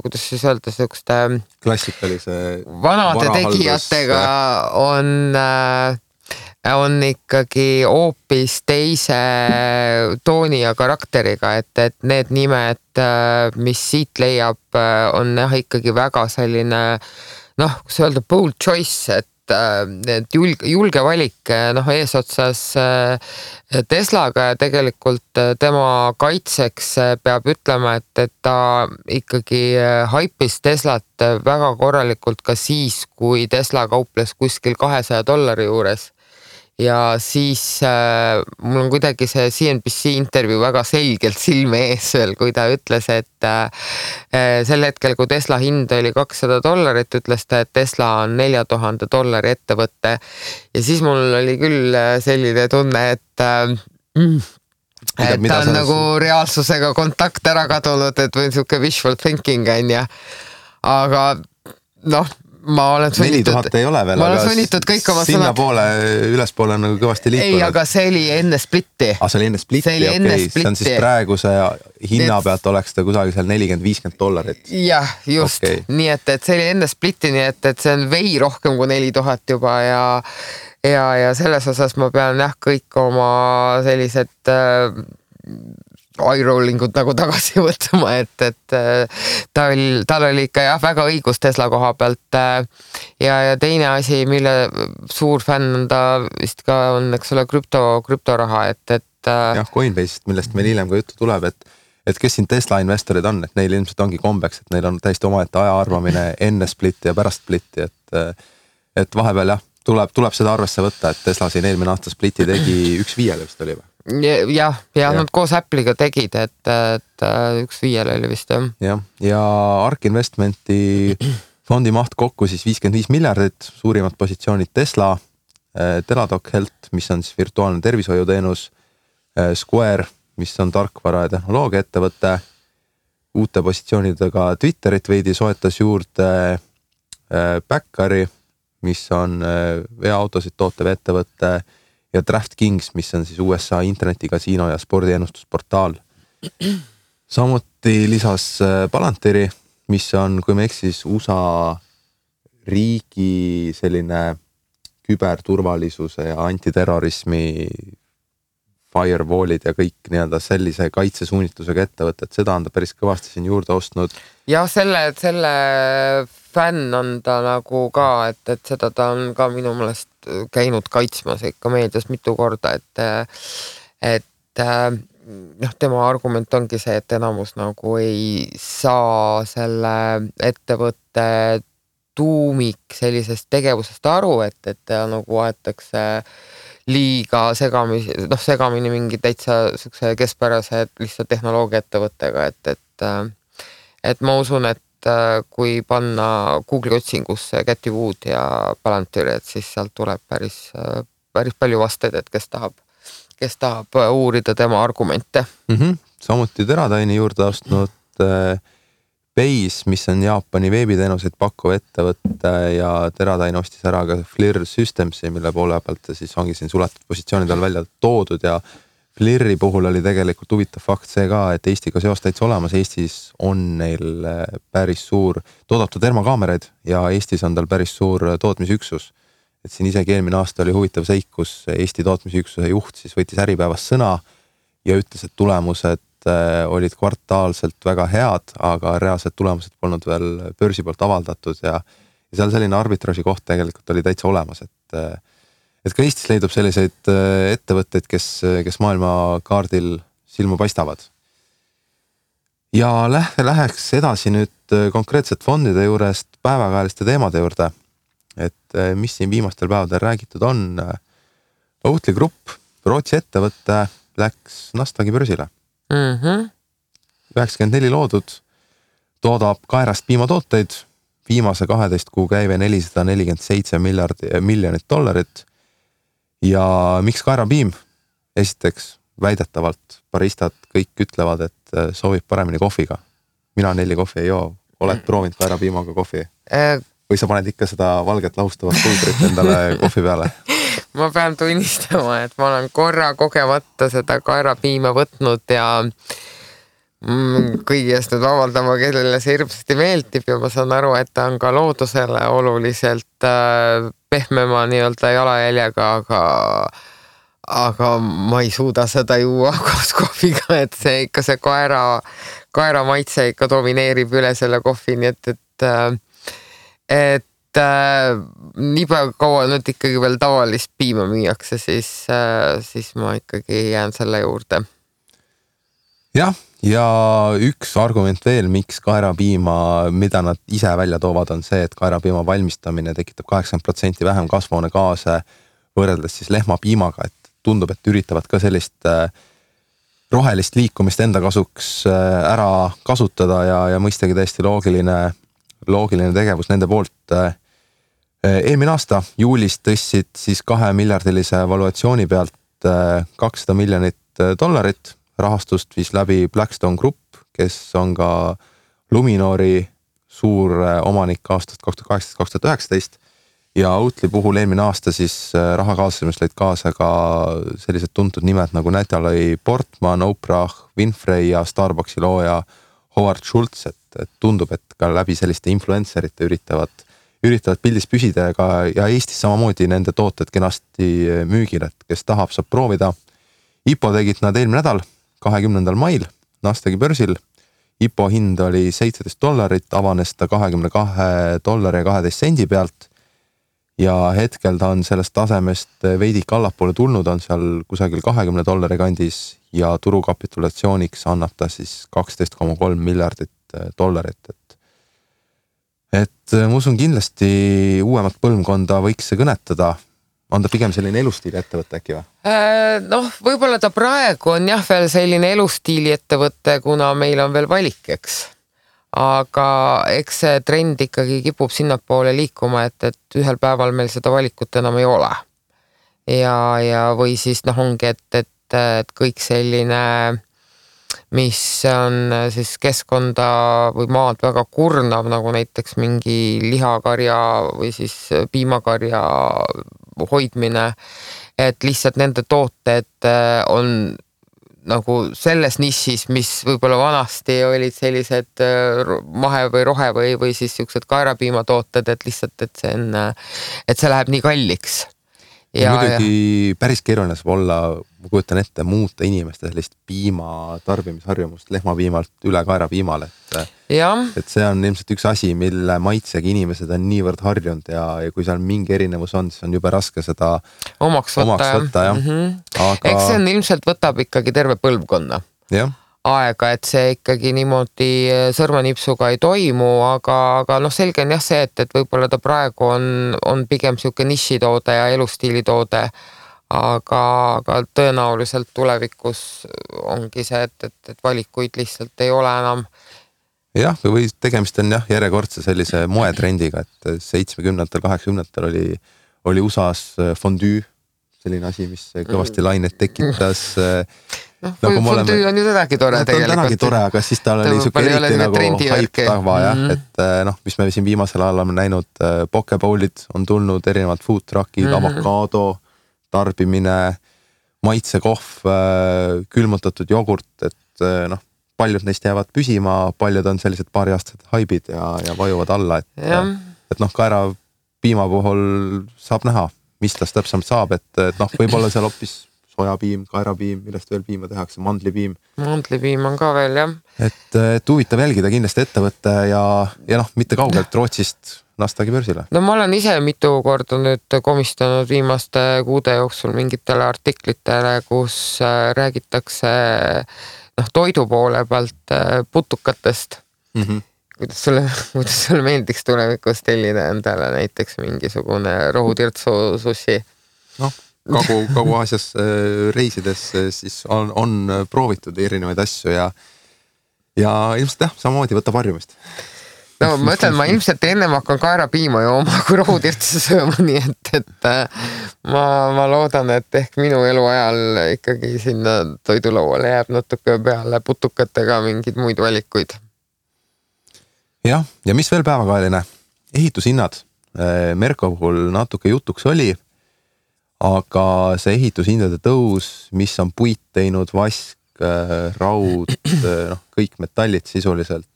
kuidas siis öelda, sellekoste klassikalise vanade tegijatega on ikkagi hoopis teise tooni ja karakteriga, et need nimed, mis siit leiab, on jah ikkagi väga selline, kus öelda, bold choice, et julge valik eesotsas Teslaga ja tegelikult tema kaitseks peab ütlema, et ta ikkagi haipis Teslat väga korralikult ka siis, kui Tesla kauples kuskil $200 juures. Ja siis mul on kuidagi see CNBC intervjuu väga selgelt silme ees veel, kui ta ütles, et sel hetkel, kui Tesla hind oli $200, ütles ta, et Tesla on $4000 ettevõtte. Ja siis mul oli küll selline tunne, et ta on nagu reaalsusega kontakt ära kadunud, et või niisugune wishful thinking on ja. Aga ma olen sunnitud, 4000 ei ole veel, ma olen sunnitud kõik oma sinna poole, ülespoole on nagu kõvasti liikunud. Ei, aga see oli enne splitti. See oli enne splitti, okei. See on siis praeguse hinna pealt oleks ta kusagil seal $40-50. Jah, just. Okay. Nii et see oli enne splitti, nii et see on vei rohkem kui 4000 juba ja selles osas ma pean kõik oma sellised eye-rollingud nagu tagasi võtma, et tal oli ikka väga õigus Tesla koha pealt ja teine asi, mille suur fänn on ta vist ka on, eks ole, krüptoraha, jah, Coinbase'ist, millest meil hiljem ka juttu tuleb, et kes siin Tesla investorid on, et neil ilmselt ongi kombeks, et neil on täiesti omaette aja arvamine enne splitti ja pärast splitti, et vahepeal jah, tuleb seda arvesse võtta, et Tesla siin eelmine aasta splitti tegi 1/5 vist oli või? Jah, nad koos Apple'iga tegid, et 1/5 oli vist jah. Ja ARK Investmenti fondi maht kokku siis 55 miljardit, suurimad positsioonid Tesla, Teladoc Health, mis on siis virtuaalne tervishoiuteenus, Square, mis on tarkvara ja tehnoloogia ettevõte, uute positsioonidega Twitterit veidi soetas juurde Backari, mis on veoautosid tootev ettevõte ja DraftKings, mis on siis USA internetikasiino ja spordiennustusportaal. Samuti lisas Palantiri, mis on, kui me eksis, USA riigi selline küberturvalisuse ja antiterrorismi firewallid ja kõik nii-öelda sellise kaitsesuunitusega ettevõtted, seda on ta päris kõvasti siin juurde ostnud. Ja selle fänn on ta nagu ka, et seda ta on ka minu meelest käinud kaitsmas ikka meedias mitu korda, et tema argument ongi see, et enamus nagu ei saa selle ettevõtte tuumik sellisest tegevusest aru, et nagu aetakse liiga segamini mingi täitsa sükse keskpärase lihtsalt tehnoloogia ettevõttega, et ma usun, et kui panna Google'i otsingusse Cathy Wood ja Palantir, et siis sealt tuleb päris palju vasteid, et kes tahab uurida tema argumente. Samuti Teradyne'i juurde ostnud Base, mis on Jaapani veebiteenuseid pakkuv ettevõtte ja Teradyne ostis ära ka FLIR Systemsi, mille poole pealt siis ongi siin suletud positsioonidel välja toodud ja FLIR-i puhul oli tegelikult huvitav fakt see ka, et Eestiga seos täitsa olemas. Eestis on neil päris suur toodetud termokaameraid ja Eestis on tal päris suur tootmisüksus. Et siin isegi eelmine aasta oli huvitav seik, kus Eesti tootmisüksuse juht siis võttis Äripäevas sõna ja ütles, et tulemused olid kvartaalselt väga head, aga reaalsed tulemused polnud veel börsi poolt avaldatud ja seal selline arbitraaži koht tegelikult oli täitsa olemas, et ka Eestis leidub selliseid ettevõtteid, kes maailma kaardil silma paistavad. Ja läheks edasi nüüd konkreetselt fondide juurest päevakajaliste teemade juurde, et mis siin viimastel päevadel räägitud on. Oatly Grupp, Rootsi ettevõtte, läks Nasdaqi börsile. 94 loodud, toodab kaerast piimatooteid, viimase 12 kuu käive $447 miljonit. Ja miks kaerapiim? Esiteks, väidetavalt baristad kõik ütlevad, et soovib paremini kohviga. Mina 4 kohvi ei joo. Oled proovinud kaerapiimaga kohvi? Või sa paned ikka seda valget lahustavat pulbrit endale kohvi peale? Ma pean tunnistama, et ma olen korra kogemata seda kaerapiima võtnud ja kõigi eest nüüd avaldama, kellele see hirmsasti meeldib ja ma saan aru, et ta on ka loodusele oluliselt pehmema nii-öelda jalajäljega, aga ma ei suuda seda juua koos kohviga, et see ikka see kaera maitse ikka domineerib üle selle kohvi, nii et nii palju kaua nüüd ikkagi veel tavalist piima müüakse, siis ma ikkagi jään selle juurde. Jah, ja üks argument veel, miks kaerapiima, mida nad ise välja toovad, on see, et kaerapiima valmistamine tekitab 80% vähem kasvuhoonegaase võrreldes siis lehmapiimaga, et tundub, et üritavad ka sellist rohelist liikumist enda kasuks ära kasutada ja mõistagi täiesti loogiline tegevus nende poolt. Eelmine aasta juulis tõssid siis $2 miljardilise valuatsiooni pealt $200 miljonit, rahastust viis läbi Blackstone Group, kes on ka Luminori suur omanik aastast 2018-2019 ja Oatly puhul eelmine aasta siis raha kaasamist lõid kaasa ka sellised tuntud nimed nagu Natalie Portman, Oprah Winfrey ja Starbucksi looja Howard Schultz, et tundub, et ka läbi selliste influencerite üritavad pildis püsida ja Eestis samamoodi nende tooted kenasti müügil, et kes tahab, saab proovida. IPO tegid nad eelmine nädal, 20. mail Nasdaqi börsil. IPO hind oli $17, avanes ta $22.12 pealt ja hetkel ta on sellest tasemest veidik allapoole tulnud, on seal kusagil $20 kandis ja turukapitulatsiooniks annab ta siis $12.3 miljardit. Et ma usun kindlasti uuemat põlvkonda võiks see kõnetada. On ta pigem selline elustiili ettevõte äkki või? Noh, võib-olla ta praegu on jah veel selline elustiili ettevõte, kuna meil on veel valik, eks. Aga eks see trend ikkagi kipub sinnapoole liikuma, et ühel päeval meil seda valikut enam ei ole. Ja või siis ongi, et kõik selline, mis on siis keskkonda või maad väga kurnav, nagu näiteks mingi lihakarja või siis piimakarja hoidmine, et lihtsalt nende tooted on nagu selles nišis, mis võib-olla vanasti olid sellised mahe või rohe või siis siuksed kaerapiimatooted, et lihtsalt, et see läheb nii kalliks. Ja muidugi päris keeruline saab olla, ma kujutan ette, muuta inimeste sellist piima tarbimisharjumust lehmapiimalt üle kaerapiimale. Et see on ilmselt üks asi, mille maitsega inimesed on niivõrd harjunud ja kui seal mingi erinevus on, siis on jube raske seda omaks võtta. Aga... Eks see on ilmselt võtab ikkagi terve põlvkonna aega, et see ikkagi niimoodi sõrmanipsuga ei toimu, aga selge on jah see, et võib-olla ta praegu on pigem siuke nišitoode ja elustiilitoode, aga tõenäoliselt tulevikus ongi see, et valikuid lihtsalt ei ole enam. Jah, või tegemist on järjekordse sellise moetrendiga, et 70-ndatel, 80-ndatel oli USA's fondue, selline asi, mis kõvasti lainet tekitas. Fondue on ju tänagi tore tegelikult. Tänagi tore, aga siis tal oli siuke eriti nagu hype tava, et mis me siin viimasel ajal oleme näinud, pokebowlid on tulnud, erinevad food truckid, avokaado tarbimine, maitsekohv, külmutatud jogurt, et paljud neist jäävad püsima, paljud on sellised paariaastased haibid ja vajuvad alla, et kaera piima puhul saab näha, mis tast täpsemalt saab, et võib-olla seal hoopis sojapiim, kaerapiim, millest veel piima tehakse, mandlipiim. Mandlipiim on ka veel, jah. Et huvitav jälgida kindlasti ettevõtte ja mitte kaugelt Rootsist Nasdaqi börsile. No ma olen ise mitu korda nüüd komistanud viimaste kuude jooksul mingitele artiklitele, kus räägitakse toidu poole pealt putukatest. Kuidas sulle meeldiks tulevikus tellida endale näiteks mingisugune rohutirtsu sushi? Kagu-Aasias reisides siis on proovitud erinevaid asju ja ilmselt samamoodi võtab harjumist. No ma ütlen, ma ilmselt ennem hakkan kaerapiima jooma kui rohutirtsu sööma, nii et ma loodan, et ehk minu eluajal ikkagi sinna toidulauale jääb natuke peale putukatega mingid muid valikuid. Ja mis veel päevakajaline? Ehitushinnad. Merko puhul natuke jutuks oli, aga see ehitushindade tõus, mis on puit teinud, vask, raud, kõik metallid sisuliselt.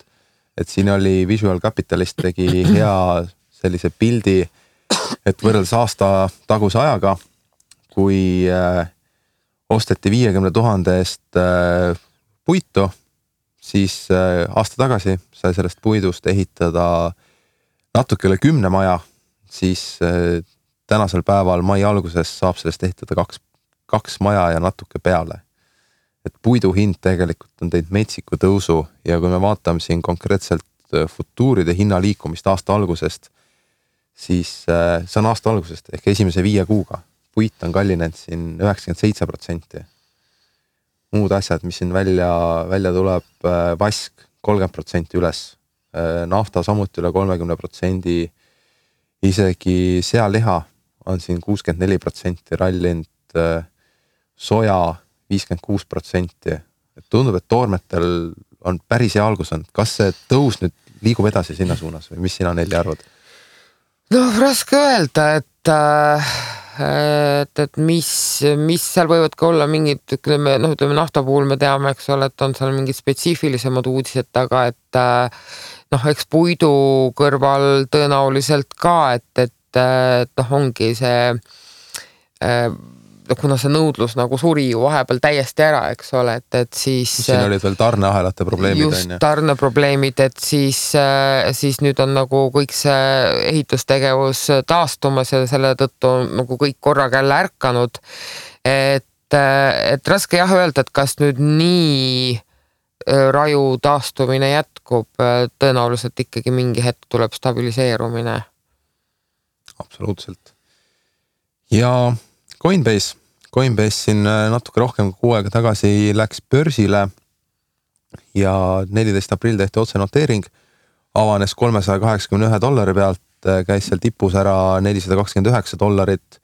Et siin oli Visual Capitalist tegi hea sellise pildi, et võrreldes aasta taguse ajaga, kui osteti 50 000 eest puitu, siis aasta tagasi sai sellest puidust ehitada natuke üle 10 maja, siis tänasel päeval mai alguses saab sellest ehitada kaks maja ja natuke peale. Et puidu hind tegelikult on teinud metsiku tõusu ja kui me vaatame siin konkreetselt futuuride hinna liikumist aasta algusest, siis see on aasta algusest ehk esimese 5 kuuga. Puit on kallinenud siin 97%. Muud asjad, mis siin välja tuleb, vask 30% üles, nafta samuti üle 30%, isegi sealiha on siin 64% rallinud, soja 56%. Et tundub, et toormetel on päris hea algus olnud. Kas see tõus nüüd liigub edasi sinna suunas või mis sina Nelli arvad? Noh, raske öelda, et mis seal võivad ka olla mingid, ütleme nafta puhul me teame, eks ole, et on seal mingid spetsiifilisemad uudised taga, et eks puidu kõrval tõenäoliselt ka, et ongi see kuna see nõudlus nagu suri ju vahepeal täiesti ära, eks ole, et siis siin olid veel tarneahelate probleemid. Just tarneprobleemid, et siis nüüd on nagu kõik see ehitustegevus taastumas ja selle tõttu on nagu kõik korraga jälle ärkanud. Et raske jah öelda, et kas nüüd nii raju taastumine jätkub, tõenäoliselt ikkagi mingi hetk tuleb stabiliseerumine. Absoluutselt. Ja Coinbase siin natuke rohkem kui 6 aega tagasi läks börsile ja 14. aprill tehti otsenoteering, avanes $381 pealt, käis seal tipus ära $429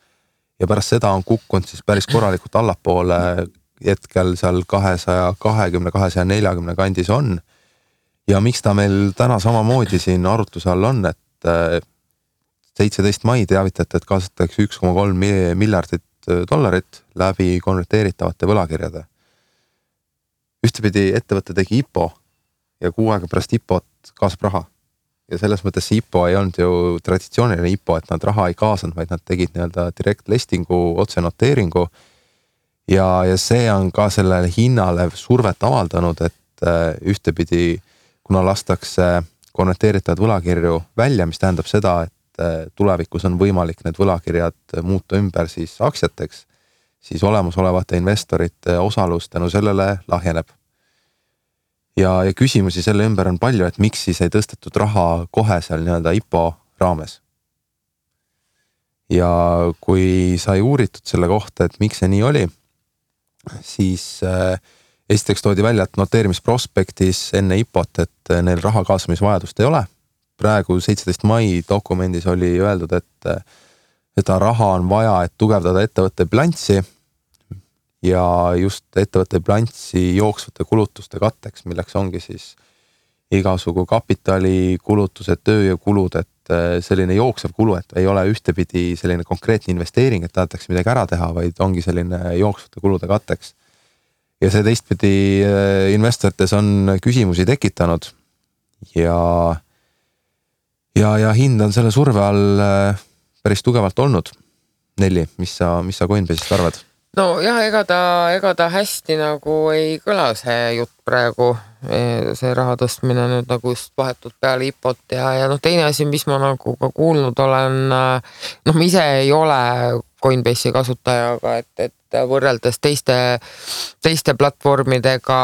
ja pärast seda on kukkunud siis päris korralikult allapoole, hetkel seal 220, 240 kandis on. Ja miks ta meil täna samamoodi siin arutluse all on, et 17. mai teavitati, et kaasatakse $1,3 miljardit läbi konverteeritavate võlakirjade. Ühtepidi ettevõte tegi IPO ja 6 aega pärast IPO-t kaasab raha. Ja selles mõttes see IPO ei olnud ju traditsiooniline IPO, et nad raha ei kaasanud, vaid nad tegid direct listingu, otsenoteeringu ja see on ka sellele hinnale survet avaldanud, et ühtepidi, kuna lastakse konverteeritavad võlakirju välja, mis tähendab seda, et tulevikus on võimalik need võlakirjad muuta ümber siis aktsiateks, siis olemasolevate investorite osalus tänu sellele lahjeneb. Ja küsimusi selle ümber on palju, et miks siis ei tõstetud raha kohe seal IPO raames. Ja kui sai uuritud selle kohta, et miks see nii oli, siis esiteks toodi välja, et noteerimisprospektis enne IPO-t, et neil raha kaasamisvajadust ei ole. Praegu 17. mai dokumendis oli öeldud, et seda raha on vaja, et tugevdada ettevõtte bilanssi ja just ettevõtte bilanssi jooksvate kulutuste katteks, milleks ongi siis igasugu kapitali kulutused, tööjõukulud, et selline jooksev kulu, et ei ole ühtepidi selline konkreetne investeering, et tahetakse midagi ära teha, vaid ongi selline jooksvate kulude katteks. Ja see teistpidi investorites on küsimusi tekitanud ja hind on selle surve all päris tugevalt olnud. Nelli, mis sa Coinbase'ist arvad? No jah, ega ta hästi nagu ei kõla see jutt praegu, see raha tõstmine nüüd nagu just vahetult peale IPO-t ja teine asi, mis ma nagu ka kuulnud olen, ma ise ei ole Coinbase'i kasutajaga, et võrreldes teiste platvormidega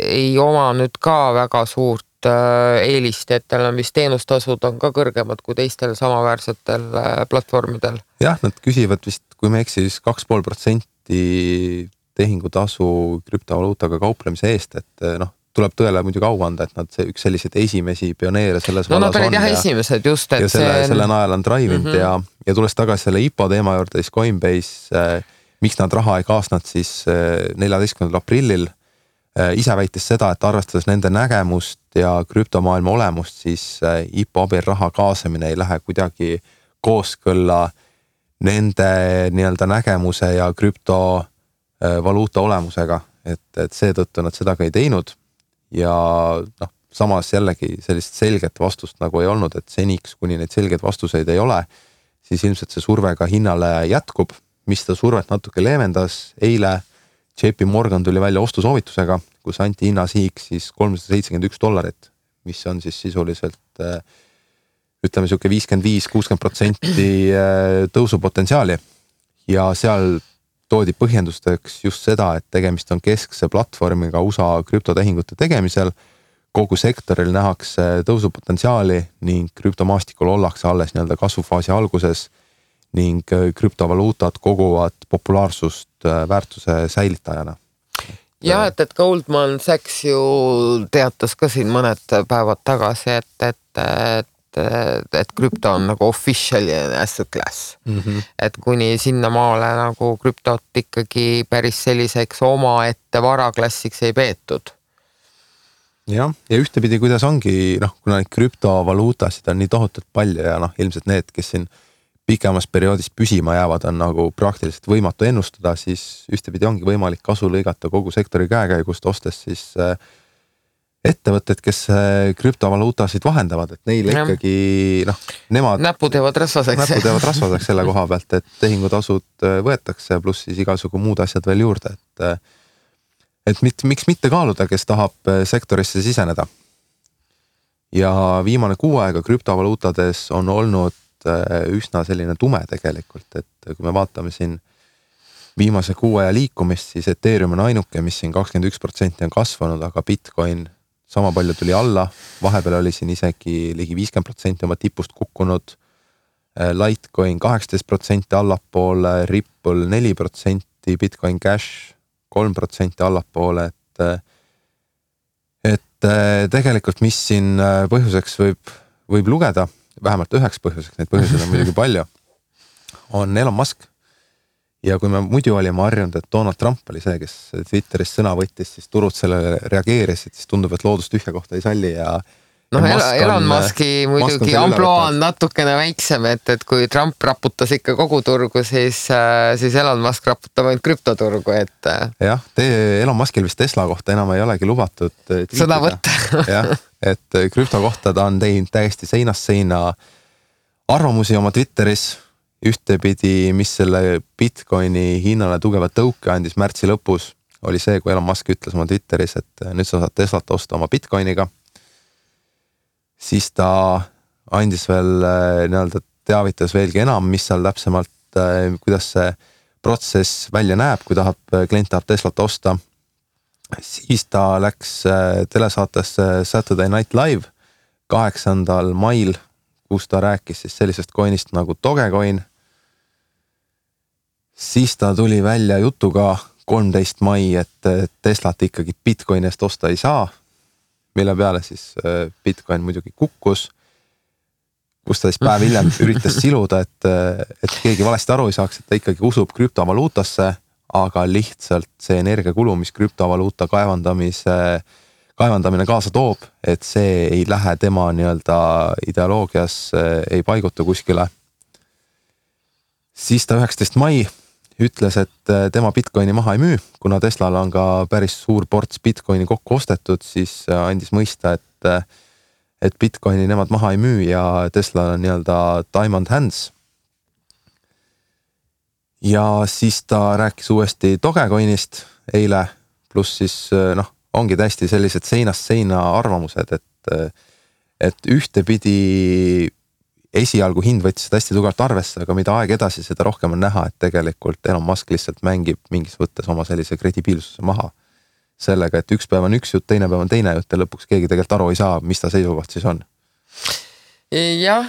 ei oma nüüd ka väga suurt eelist, et tal on vist teenustasud on ka kõrgemad kui teistel samaväärsetel platvormidel. Jah, nad küsivad vist, kui me eks siis 2,5% tehingutasu krüptovaluutaga kauplemise eest, et tuleb tõele muidugi au anda, et nad üks selliseid esimesi pioneere selles vallas on. Nad olid jah esimesed just, et ja selle najal on drive-ind ja tulles tagasi selle IPO teema juurde, siis Coinbase, miks nad raha ei kaasnud siis 14. aprillil, ise väitis seda, et arvestades nende nägemust ja krüptomaailma olemust, siis IPO abil raha kaasamine ei lähe kuidagi kooskõlla nende nägemuse ja krüptovaluuta olemusega, et seetõttu nad seda ka ei teinud ja samas jällegi sellist selget vastust nagu ei olnud, et seniks, kuni neid selgeid vastuseid ei ole, siis ilmselt see surve ka hinnale jätkub, mis seda survet natuke leevendas. Eile JP Morgan tuli välja ostusoovitusega, kus anti hinnasihiks siis $371, mis on siis sisuliselt ütleme siuke 55-60% tõusupotentsiaali ja seal toodi põhjendusteks just seda, et tegemist on keskse platvormiga USA krüptotehingute tegemisel, kogu sektoril nähakse tõusupotentsiaali ning krüptomaastikul ollakse alles kasvufaasi alguses ning krüptovaluutad koguvad populaarsust väärtuse säilitajana. Ja, et Goldman Sachs ju teatas ka siin mõned päevad tagasi, et krüpto on nagu official asset class. Et kuni sinna maale nagu krüptot ikkagi päris selliseks oma ette varaklassiks ei peetud. jah, ja ühtepidi, kuidas ongi, kuna neid krüptovaluutasid on nii tohutult palju ja ilmselt need, kes siin pikemas perioodis püsima jäävad, on nagu praktiliselt võimatu ennustada, siis ühtepidi ongi võimalik kasu lõigata kogu sektori käekäigust, ostes siis ettevõtted, kes krüptovaluutasid vahendavad, et neile ikkagi, nemad näpud jäävad rasvaseks selle koha pealt, et tehingutasud võetakse, pluss siis igasugu muud asjad veel juurde, et miks mitte kaaluda, kes tahab sektorisse siseneda. Ja viimane kuu aega krüptovaluutades on olnud üsna selline tume tegelikult, et kui me vaatame siin viimase kuu aja liikumist, siis Ethereum on ainuke, mis siin 21% on kasvanud, aga Bitcoin sama palju tuli alla, vahepeal oli siin isegi ligi 50% oma tipust kukkunud, Litecoin 18% allapoole, Ripple 4%, Bitcoin Cash 3% allapoole, et tegelikult mis siin põhjuseks võib lugeda, vähemalt üheks põhjuseks, neid põhjuseid on muidugi palju, on Elon Musk. Ja kui me muidu olime harjunud, et Donald Trump oli see, kes Twitteris sõna võttis, siis turud sellele reageerisid, siis tundub, et loodust tühja kohta ei salli ja Elon Muski muidugi amploa on natukene väiksem, et kui Trump raputas ikka kogu turgu, siis Elon Musk raputab ainult krüptoturgu, et jah, Elon Muskil vist Tesla kohta enam ei olegi lubatud sõna võtta. jah, et krüpto kohta ta on teinud täiesti seinast seina arvamusi oma Twitteris, ühtepidi, mis selle Bitcoini hinnale tugeva tõuke andis märtsi lõpus, oli see, kui Elon Musk ütles oma Twitteris, et nüüd sa saad Teslat osta oma Bitcoiniga. Siis ta andis veel teavitas veelgi enam, mis seal täpsemalt, kuidas see protsess välja näeb, kui klient tahab Teslat osta. Siis ta läks telesaatesse Saturday Night Live 8. mail, kus ta rääkis siis sellisest coinist nagu Dogecoin. Siis ta tuli välja jutuga 13. mai, et Teslat ikkagi Bitcoini eest osta ei saa, mille peale siis Bitcoin muidugi kukkus, kus ta siis päev hiljem üritas siluda, et keegi valesti aru ei saaks, et ta ikkagi usub krüptovaluutasse, aga lihtsalt see energiakulu, mis krüptovaluuta kaevandamine kaasa toob, et see ei lähe tema ideoloogias, ei paiguta kuskile. Siis ta 19. mai ütles, et tema Bitcoini maha ei müü, kuna Teslal on ka päris suur ports Bitcoini kokku ostetud, siis andis mõista, et Bitcoini nemad maha ei müü ja Tesla on time on hands. Ja siis ta rääkis uuesti Dogecoinist eile, pluss siis ongi täiesti sellised seinast seina arvamused, et ühtepidi esialgu hind võttis seda hästi tugevalt arvesse, aga mida aeg edasi, seda rohkem on näha, et tegelikult Elon Musk lihtsalt mängib mingis võttes oma sellise kredibiilsuse maha sellega, et üks päev on üks jutt, teine päev on teine jutt ja lõpuks keegi tegelikult aru ei saa, mis ta seisukoht siis on. Jah,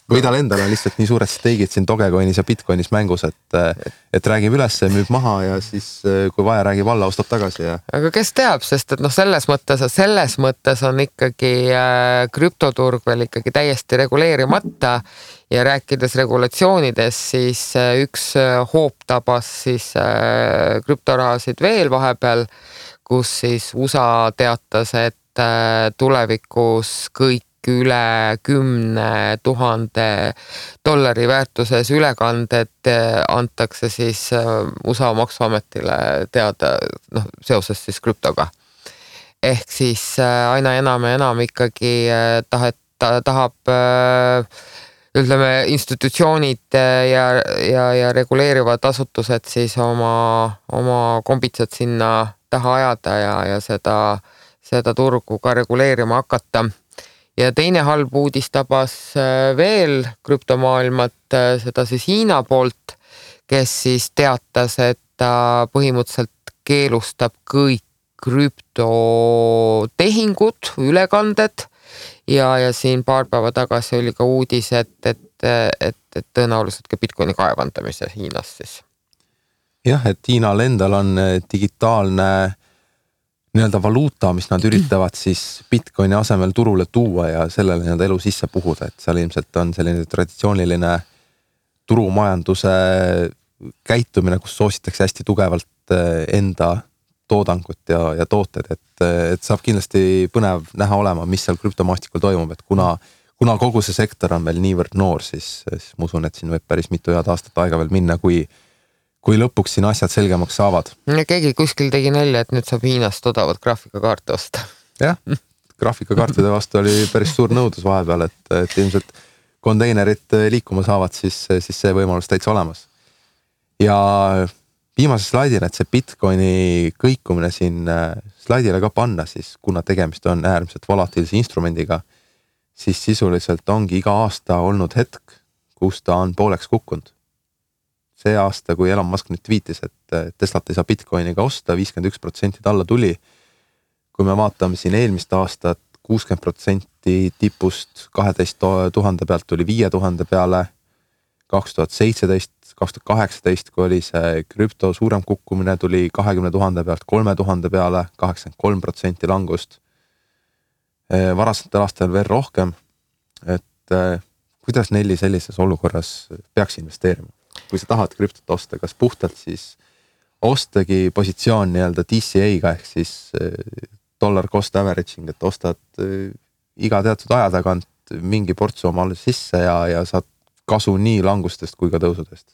või tal endal on lihtsalt nii suured steigid siin Dogecoinis ja Bitcoinis mängus, et räägib üles, müüb maha ja siis kui vaja räägib alla, ostab tagasi. Ja... Aga kes teab, sest et selles mõttes on ikkagi krüptoturg veel ikkagi täiesti reguleerimata ja rääkides regulatsioonides, siis üks hoop tabas siis krüptorahasid veel vahepeal, kus siis USA teatas, et tulevikus kõik üle 10 000 dollari väärtuses ülekanded antakse siis USA maksuametile teada seoses siis krüptoga. Ehk siis aina enam ja enam ikkagi tahab ütleme institutsioonid ja reguleerivad asutused siis oma kombitsad sinna taha ajada ja seda turgu ka reguleerima hakata. Ja teine halb uudis tabas veel krüptomaailmat, seda siis Hiina poolt, kes siis teatas, et ta põhimõtteliselt keelustab kõik krüptotehingud, ülekanded ja siin paar päeva tagasi oli ka uudis, et tõenäoliselt ka Bitcoini kaevandamise Hiinas siis. Jah, et Hiinal endal on digitaalne valuuta, mis nad üritavad siis Bitcoini asemel turule tuua ja sellele elu sisse puhuda, et seal ilmselt on selline traditsiooniline turumajanduse käitumine, kus soositakse hästi tugevalt enda toodangut ja tooted, et saab kindlasti põnev näha olema, mis seal krüptomaastikul toimub, et kuna kogu see sektor on veel niivõrd noor, siis ma usun, et siin võib päris mitu head aastat aega veel minna, kui lõpuks siin asjad selgemaks saavad. Keegi kuskil tegi nalja, et nüüd saab Hiinast odavat graafikakaarte osta. Jah, graafikakaartide vastu oli päris suur nõudlus vahepeal, et ilmselt konteinerid liikuma saavad, siis see võimalus täitsa olemas. Ja viimase slaidina, et see Bitcoini kõikumine siin slaidile ka panna, siis kuna tegemist on äärmiselt volatiilse instrumendiga, siis sisuliselt ongi iga aasta olnud hetk, kus ta on pooleks kukkunud. See aasta, kui Elon Musk nüüd tweetis, et Teslat ei saa Bitcoiniga osta, 51% alla tuli. Kui me vaatame siin eelmist aastat, 60% tipust 12 000 pealt tuli 5000 peale, 2017, 2018, kui oli see krüpto suurem kukkumine, tuli 20 000 pealt 3000 peale, 83% langust. Varasetel aastal veel rohkem, et kuidas Nelli sellises olukorras peaks investeerima? Kui sa tahad krüptot osta, kas puhtalt siis ostagi positsioon nii-öelda DCA-ga ehk siis dollar cost averaging, et ostad iga teatud aja tagant mingi portsu omale sisse ja saad kasu nii langustest kui ka tõusudest.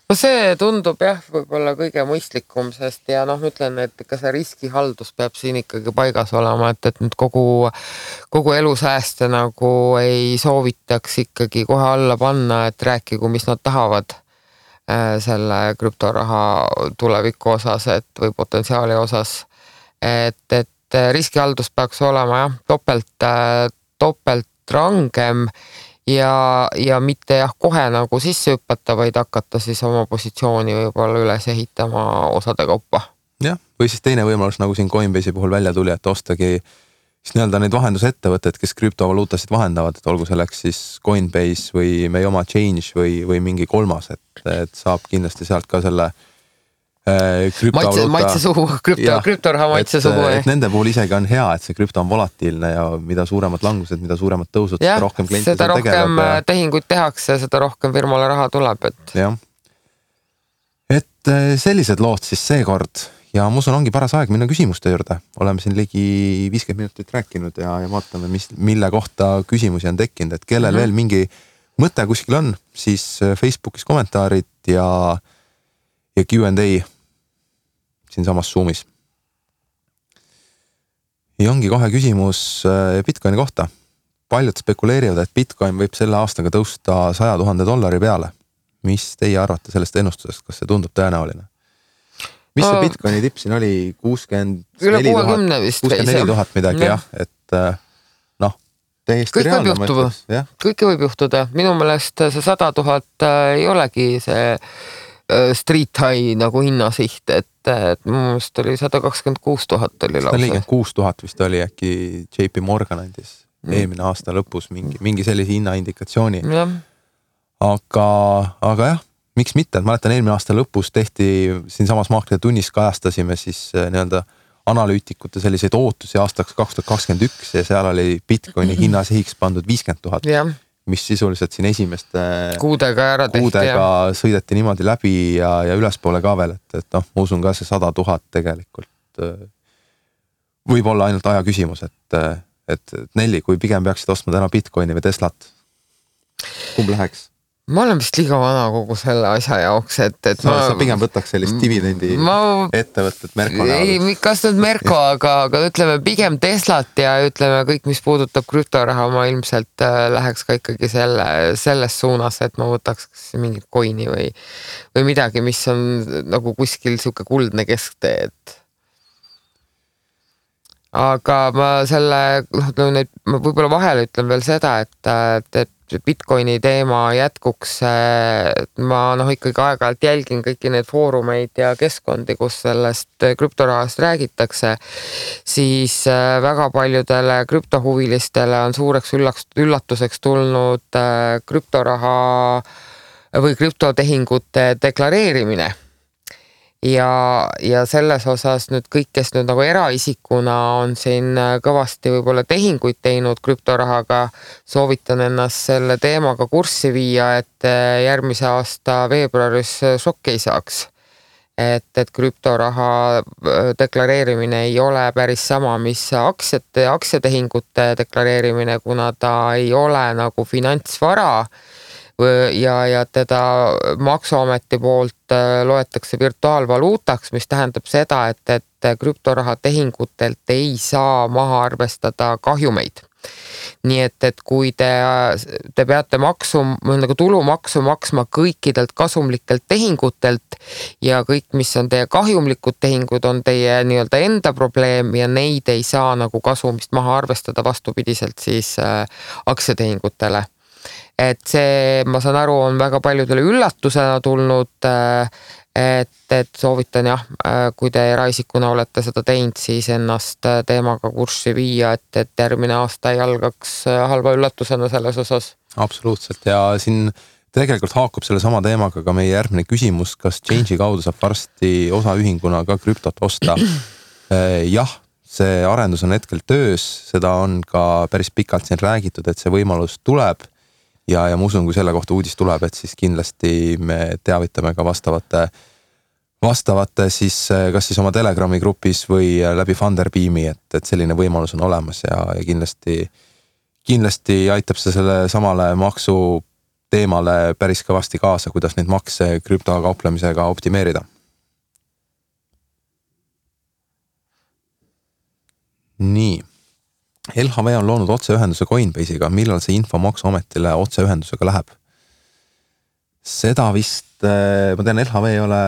No see tundub jah, võib-olla kõige mõistlikum, sest ja ütlen, et ikka see riskihaldus peab siin ikkagi paigas olema, et nüüd kogu elusääste nagu ei soovitaks ikkagi kohe alla panna, et rääkigu, mis nad tahavad selle krüptoraha tuleviku osas, või potentsiaali osas, et riskihaldus peaks olema jah, topelt rangem ja mitte jah, kohe nagu sisse hüppata, vaid hakata siis oma positsiooni võib-olla üles ehitama osade kaupa. Jah, või siis teine võimalus, nagu siin Coinbase'i puhul välja tuli, et ostagi siis nii-öelda neid vahendusettevõtted, kes krüptovaluutasid vahendavad, et olgu selleks siis Coinbase või meie oma Change või mingi kolmas, et saab kindlasti sealt ka selle maitse suhu, krüptoraha maitse suhu. Et nende puhul isegi on hea, et see krüpto on volatiilne ja mida suuremad langused, mida suuremad tõusud, seda rohkem kliente seda rohkem tegeleb. Tehinguid tehakse, seda rohkem firmale raha tuleb. Jah. Et sellised lood siis seekord ja ma usun ongi paras aeg minna küsimuste juurde. Oleme siin ligi 50 minutit rääkinud ja vaatame, mille kohta küsimusi on tekkinud, et kellel veel mingi mõte kuskil on, siis Facebookis kommentaarid ja Q&A siin samas Zoomis. Ja ongi kohe küsimus Bitcoini kohta. Paljud spekuleerivad, et Bitcoin võib selle aastaga tõusta $100,000 peale. Mis teie arvate sellest ennustusest? Kas see tundub tõenäoline? Mis see Bitcoini tipp siin oli? 64 000 midagi, jah. Et täiesti reaalne mõttes. Kõike võib juhtuda. Minu meelest see 100 000 ei olegi see street high nagu hinnasiht, et minu meelest oli 126 000 oli lausa. 146 000 vist oli äkki JP Morgan andis eelmine aasta lõpus mingi sellise hinnaindikatsiooni. Aga jah, miks mitte, et mäletan eelmine aasta lõpus tehti siin samas Maaklide tunnis kajastasime siis nii-öelda analüütikute selliseid ootusi aastaks 2021 ja seal oli Bitcoini hinnasihiks pandud 50 000. Mis sisuliselt siin esimeste kuudega sõideti niimoodi läbi ja ülespoole ka veel, et ma usun ka see 100 000 tegelikult võib olla ainult aja küsimus, et Nelli, kui pigem peaksid ostma täna Bitcoini või Teslat, kumb läheks? Ma olen vist liiga vana kogu selle asja jaoks, et sa pigem võtaks sellist dividendi ettevõtted Merko näol. Ei, kas nüüd Merko, aga ütleme pigem Teslat ja ütleme kõik, mis puudutab krüptoraha, ma ilmselt läheks ka ikkagi selles suunas, et ma võtaks mingit coini või midagi, mis on nagu kuskil siuke kuldne kesktee, et aga ma võib-olla vahele ütlen veel seda, et Bitcoini teema jätkuks, ma ikkagi aeg-ajalt jälgin kõiki neid foorumeid ja keskkondi, kus sellest krüptorahast räägitakse, siis väga paljudele krüptohuvilistele on suureks üllatuseks tulnud krüptoraha või krüptotehingute deklareerimine. Ja selles osas nüüd kõik, kes nüüd nagu eraisikuna on siin kõvasti võib-olla tehinguid teinud krüptorahaga, soovitan ennast selle teemaga kurssi viia, et järgmise aasta veebruaris šokki ei saaks. et krüptoraha deklareerimine ei ole päris sama, mis aktsiatehingute deklareerimine, kuna ta ei ole nagu finantsvara ja teda Maksuameti poolt loetakse virtuaalvaluutaks, mis tähendab seda, et krüptoraha tehingutelt ei saa maha arvestada kahjumeid. Nii et kui te peate nagu tulumaksu maksma kõikidelt kasumlikelt tehingutelt ja kõik, mis on teie kahjumlikud tehingud, on teie nii-öelda enda probleem ja neid ei saa nagu kasumist maha arvestada vastupidiselt siis aktsiatehingutele. Et see, ma saan aru, on väga paljudele üllatusena tulnud, et soovitan jah, kui te eraisikuna olete seda teinud, siis ennast teemaga kurssi viia, et järgmine aasta ei algaks halva üllatusena selles osas. Absoluutselt ja siin tegelikult haakub selle sama teemaga ka meie järgmine küsimus, kas Change'i kaudu saab varsti osaühinguna ka krüptot osta? Jah, see arendus on hetkel töös, seda on ka päris pikalt siin räägitud, et see võimalus tuleb ja ma usun, kui selle kohta uudis tuleb, et siis kindlasti me teavitame ka vastavate siis kas siis oma Telegrami grupis või läbi Funderbeami, et selline võimalus on olemas ja kindlasti aitab see selle samale maksu teemale päris kõvasti kaasa, kuidas neid makse krüptokauplemisega optimeerida. Nii. LHV on loonud otseühenduse Coinbase'iga, millal see info Maksuametile otseühendusega läheb? Seda vist, ma tean, LHV ei ole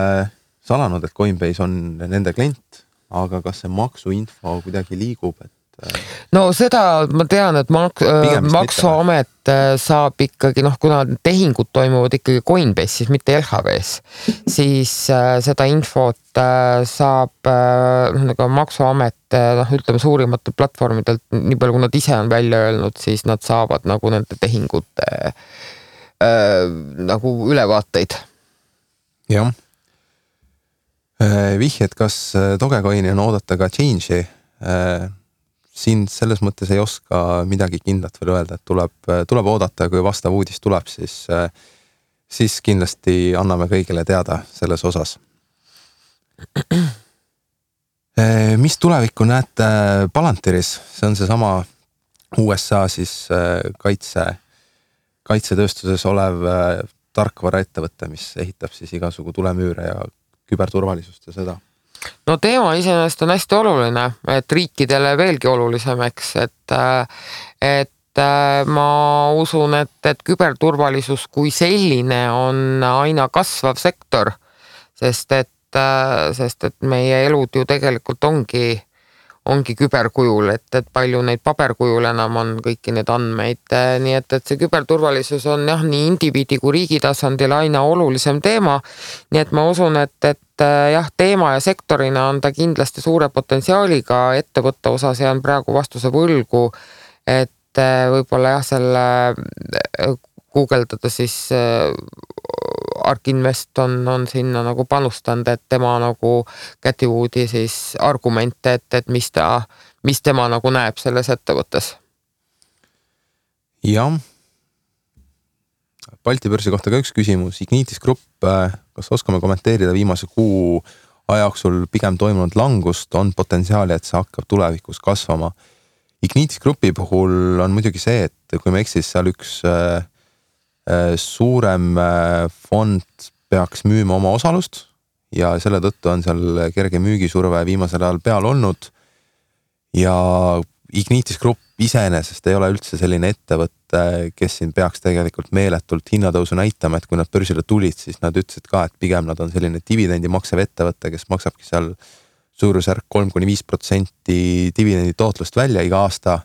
salanud, et Coinbase on nende klient, aga kas see maksuinfo kuidagi liigub, et no seda ma tean, et Maksuamet saab ikkagi, kuna tehingud toimuvad ikkagi Coinbase'is, mitte LHV's, siis seda infot saab nagu Maksuamet, ütleme suurimatel platvormidelt, nii palju kui nad ise on välja öelnud, siis nad saavad nagu nende tehingute nagu ülevaateid. Jah. Vihjed, kas Dogecoini on oodata ka Change'i? Siin selles mõttes ei oska midagi kindlat veel öelda, et tuleb oodata ja kui vastav uudis tuleb, siis kindlasti anname kõigile teada selles osas. Mis tulevikku näete Palantiris? See on see sama USA siis kaitsetööstuses olev tarkvaraettevõte, mis ehitab siis igasugu tulemüüre ja küberturvalisust ja seda. No teema iseenesest on hästi oluline, et riikidele veelgi olulisemaks, et ma usun, et küberturvalisus kui selline on aina kasvav sektor, sest et meie elud ju tegelikult ongi küberkujul, et palju neid paberkujul enam on kõiki neid andmeid, nii et see küberturvalisus on jah, nii indiviidi kui riigi tasandil aina olulisem teema, nii et ma usun, et jah, teema ja sektorina on ta kindlasti suure potentsiaaliga ettevõtte osas ja on praegu vastuse võlgu, et võib-olla jah, selle guugeldada siis Ark Invest on sinna nagu panustanud, et tema nagu Cathy Woodi siis argumente, et mis tema nagu näeb selles ettevõttes. Jah. Balti börsi kohta ka üks küsimus. Ignitis Grupp, kas oskame kommenteerida viimase kuu ajajooksul pigem toimunud langust, on potentsiaali, et see hakkab tulevikus kasvama? Ignitis Grupi puhul on muidugi see, et kui me eksis seal üks suurem fond peaks müüma oma osalust ja selle tõttu on seal kerge müügisurve viimasel ajal peal olnud ja Ignitis Grupp iseenesest ei ole üldse selline ettevõte, kes siin peaks tegelikult meeletult hinnatõusu näitama, et kui nad börsile tulid, siis nad ütlesid ka, et pigem nad on selline dividendi maksev ettevõte, kes maksabki seal suurusjärk 3-5% dividendi tootlust välja iga aasta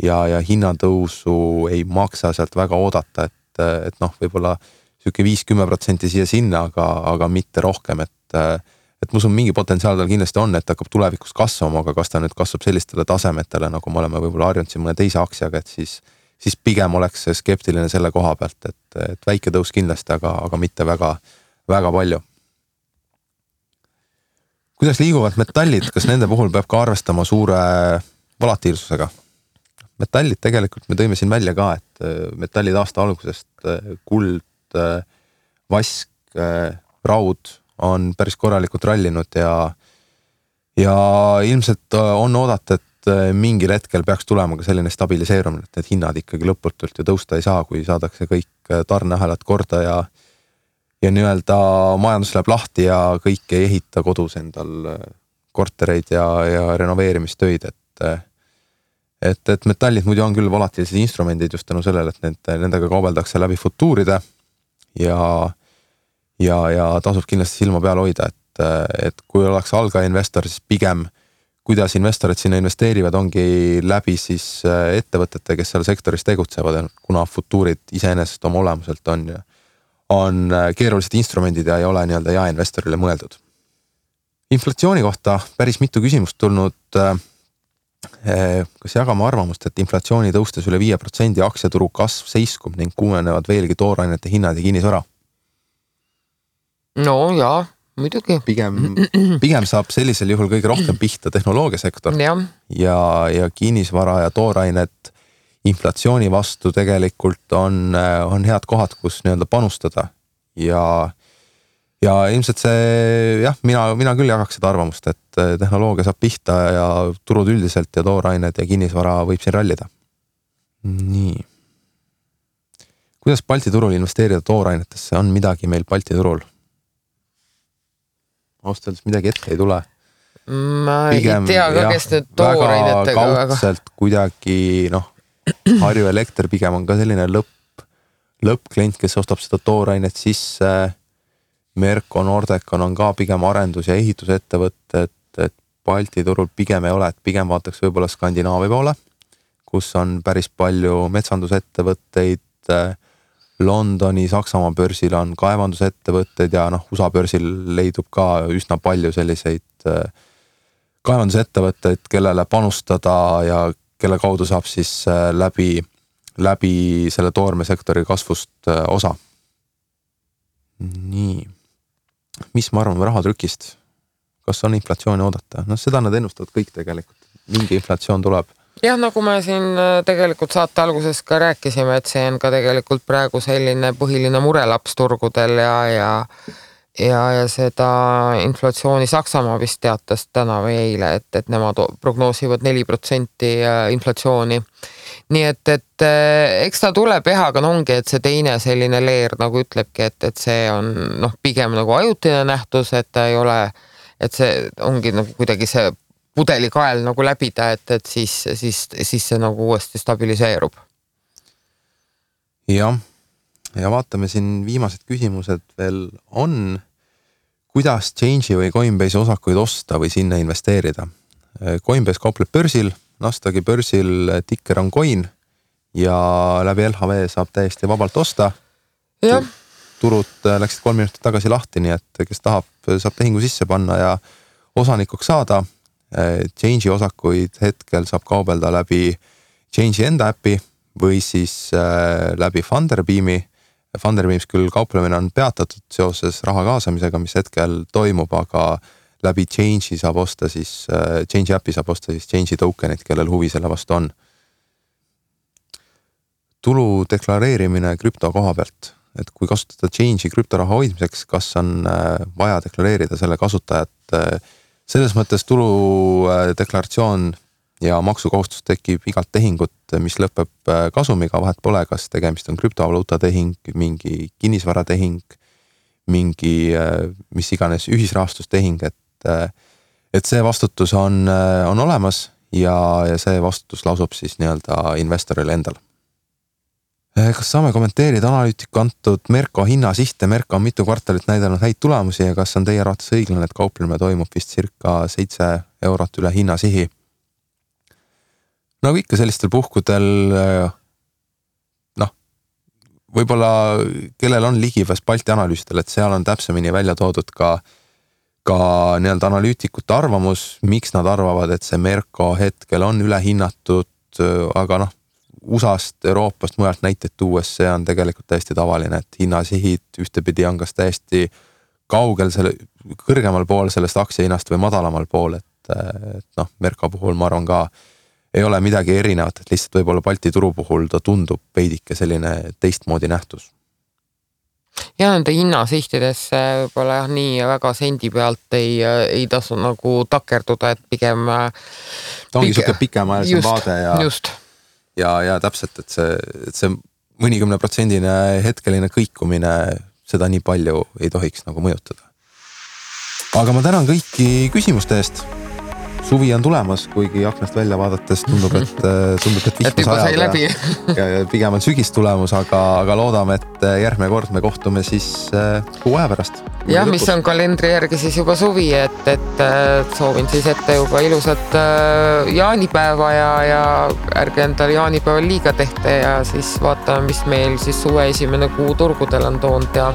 ja hinnatõusu ei maksa sealt väga oodata, et võib-olla siuke 5-10% siia sinna, aga mitte rohkem, et ma usun, mingi potentsiaal tal kindlasti on, et hakkab tulevikus kasvama, aga kas ta nüüd kasvab sellistele tasemetele, nagu me oleme võib-olla harjunud siin mõne teise aktsiaga, et siis pigem oleks skeptiline selle koha pealt, et väike tõus kindlasti, aga mitte väga, väga palju. Kuidas liiguvad metallid, kas nende puhul peab ka arvestama suure volatiilsusega? Metallid tegelikult me tõime siin välja ka, et metallid aasta algusest kuld, vask, raud on päris korralikult rallinud ja ilmselt on oodata, et mingil hetkel peaks tulema ka selline stabiliseerumine, et need hinnad ikkagi lõputult ju tõusta ei saa, kui saadakse kõik tarneahelad korda ja nii-öelda majandus läheb lahti ja kõik ei ehita kodus endal kortereid ja renoveerimistöid, et metallid muidu on küll volatiilsed instrumendid just tänu sellele, et nendega kaubeldakse läbi futuuride ja tasub kindlasti silma peal hoida, et kui oleks algaja investor, siis pigem kuidas investorid sinna investeerivad, ongi läbi siis ettevõtete, kes seal sektoris tegutsevad, kuna futuurid iseenesest oma olemuselt on keerulised instrumendid ja ei ole nii-öelda jaeinvestorile mõeldud. Inflatsiooni kohta päris mitu küsimust tulnud. Kas jagame arvamust, et inflatsiooni tõustes üle 5% aktsiaturu kasv seiskub ning kuumenevad veelgi toorainete hinnad ja kinnisvara? No jaa, muidugi. Pigem saab sellisel juhul kõige rohkem pihta tehnoloogiasektor ja kinnisvara ja toorainet inflatsiooni vastu tegelikult on head kohad, kus nii-öelda panustada ja ilmselt see, mina küll jagaks seda arvamust, et tehnoloogia saab pihta ja turud üldiselt ja toorained ja kinnisvara võib siin rallida. Nii. Kuidas Balti turul investeerida toorainetesse? On midagi meil Balti turul? Austaldes midagi ette ei tule. Ma pigem, ei tea ka, kes need toorainetega väga kaudselt kuidagi, Harju Elekter pigem on ka selline lõppklient, kes ostab seda toorainet sisse. Merko Nordecon on ka pigem arendus- ja ehitusettevõtted, et Balti turul pigem ei ole, et pigem vaataks võib-olla Skandinaavia poole, kus on päris palju metsandusettevõtteid. Londoni, Saksamaa börsil on kaevandusettevõtted ja USA börsil leidub ka üsna palju selliseid kaevandusettevõtteid, kellele panustada ja kelle kaudu saab siis läbi selle toormesektori kasvust osa. Nii. Mis ma arvan rahatrükist? Kas on inflatsiooni oodata? Seda nad ennustavad kõik tegelikult. Mingi inflatsioon tuleb. Jah, nagu me siin tegelikult saate alguses ka rääkisime, et see on ka tegelikult praegu selline põhiline murelaps turgudel ja seda inflatsiooni Saksamaa vist teatas täna või eile, et nemad prognoosivad 4% inflatsiooni. Nii et eks ta tuleb aga ongi, et see teine selline leer nagu ütlebki, et see on pigem nagu ajutine nähtus, et ta ei ole, et see ongi nagu kuidagi see pudelikael nagu läbida, et siis see nagu uuesti stabiliseerub. Jah. Ja vaatame siin viimased küsimused veel on. Kuidas Change'i või Coinbase osakuid osta või sinna investeerida? Coinbase kaupleb börsil, Nasdaqi börsil ticker on coin ja läbi LHV saab täiesti vabalt osta. Ja. Turud läksid 3 minutit tagasi lahti, nii et kes tahab, saab tehingu sisse panna ja osanikuks saada. Change'i osakuid hetkel saab kaubelda läbi Change'i enda äpi või siis läbi Funderbeami. Funderbeams küll kauplemine on peatatud seoses raha kaasamisega, mis hetkel toimub, aga läbi Change'i saab osta siis, Change'i äpi saab osta siis Change'i tokenit, kellel huvi selle vastu on. Tulu deklareerimine krüpto koha pealt, et kui kasutada Change'i krüptoraha hoidmiseks, kas on vaja deklareerida selle kasutajat. Selles mõttes tulu deklaratsioon ja maksukohustus tekib igalt tehingut, mis lõpeb kasumiga, vahet pole, kas tegemist on krüptovaluuta tehing, mingi kinnisvaratehing, mingi mis iganes ühisrahastustehing, et see vastutus on olemas ja see vastutus lasub siis nii-öelda investoril endal. Kas saame kommenteerida analüütiku antud Merko hinnasihte? Merko on mitu kvartalit näidanud häid tulemusi ja kas on teie arvates õiglane, et kauplemine toimub vist circa 7 eurot üle hinnasihi? Nagu ikka sellistel puhkudel, võib-olla kellel on ligipääs Balti analüüsidel, et seal on täpsemini välja toodud ka nii-öelda analüütikute arvamus, miks nad arvavad, et see Merko hetkel on ülehinnatud, aga USA-st, Euroopast, mujalt näiteid tuues, see on tegelikult täiesti tavaline, et hinnasihid ühtepidi on kas täiesti kaugel kõrgemal pool sellest aktsiahinnast või madalamal pool, et Merko puhul ma arvan ka ei ole midagi erinevat, et lihtsalt võib-olla Balti turu puhul ta tundub veidike selline teistmoodi nähtus. ja nende hinnasihtidesse võib-olla jah, nii väga sendi pealt ei tasu nagu takerduda, et pigem ta ongi siuke pikemaajalisem vaade ja täpselt, et see mõnikümne protsendine hetkeline kõikumine seda nii palju ei tohiks nagu mõjutada. Aga ma tänan kõiki küsimuste eest. Suvi on tulemas, kuigi aknast välja vaadates tundub, et vihma sajab ja pigem on sügis tulemus, aga loodame, et järgmine kord me kohtume siis kuu aja pärast. Ja mis on kalendri järgi siis juba suvi, et soovin siis ette juba ilusat jaanipäeva ja ärge endale jaanipäeval liiga tehte ja siis vaatame, mis meil siis suve esimene kuu turgudel on toonud ja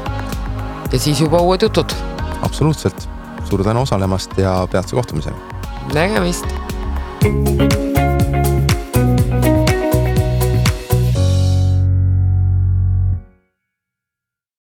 siis juba uued jutud. Absoluutselt. Suur tänu osalemast ja peatse kohtumiseni. Nägemist!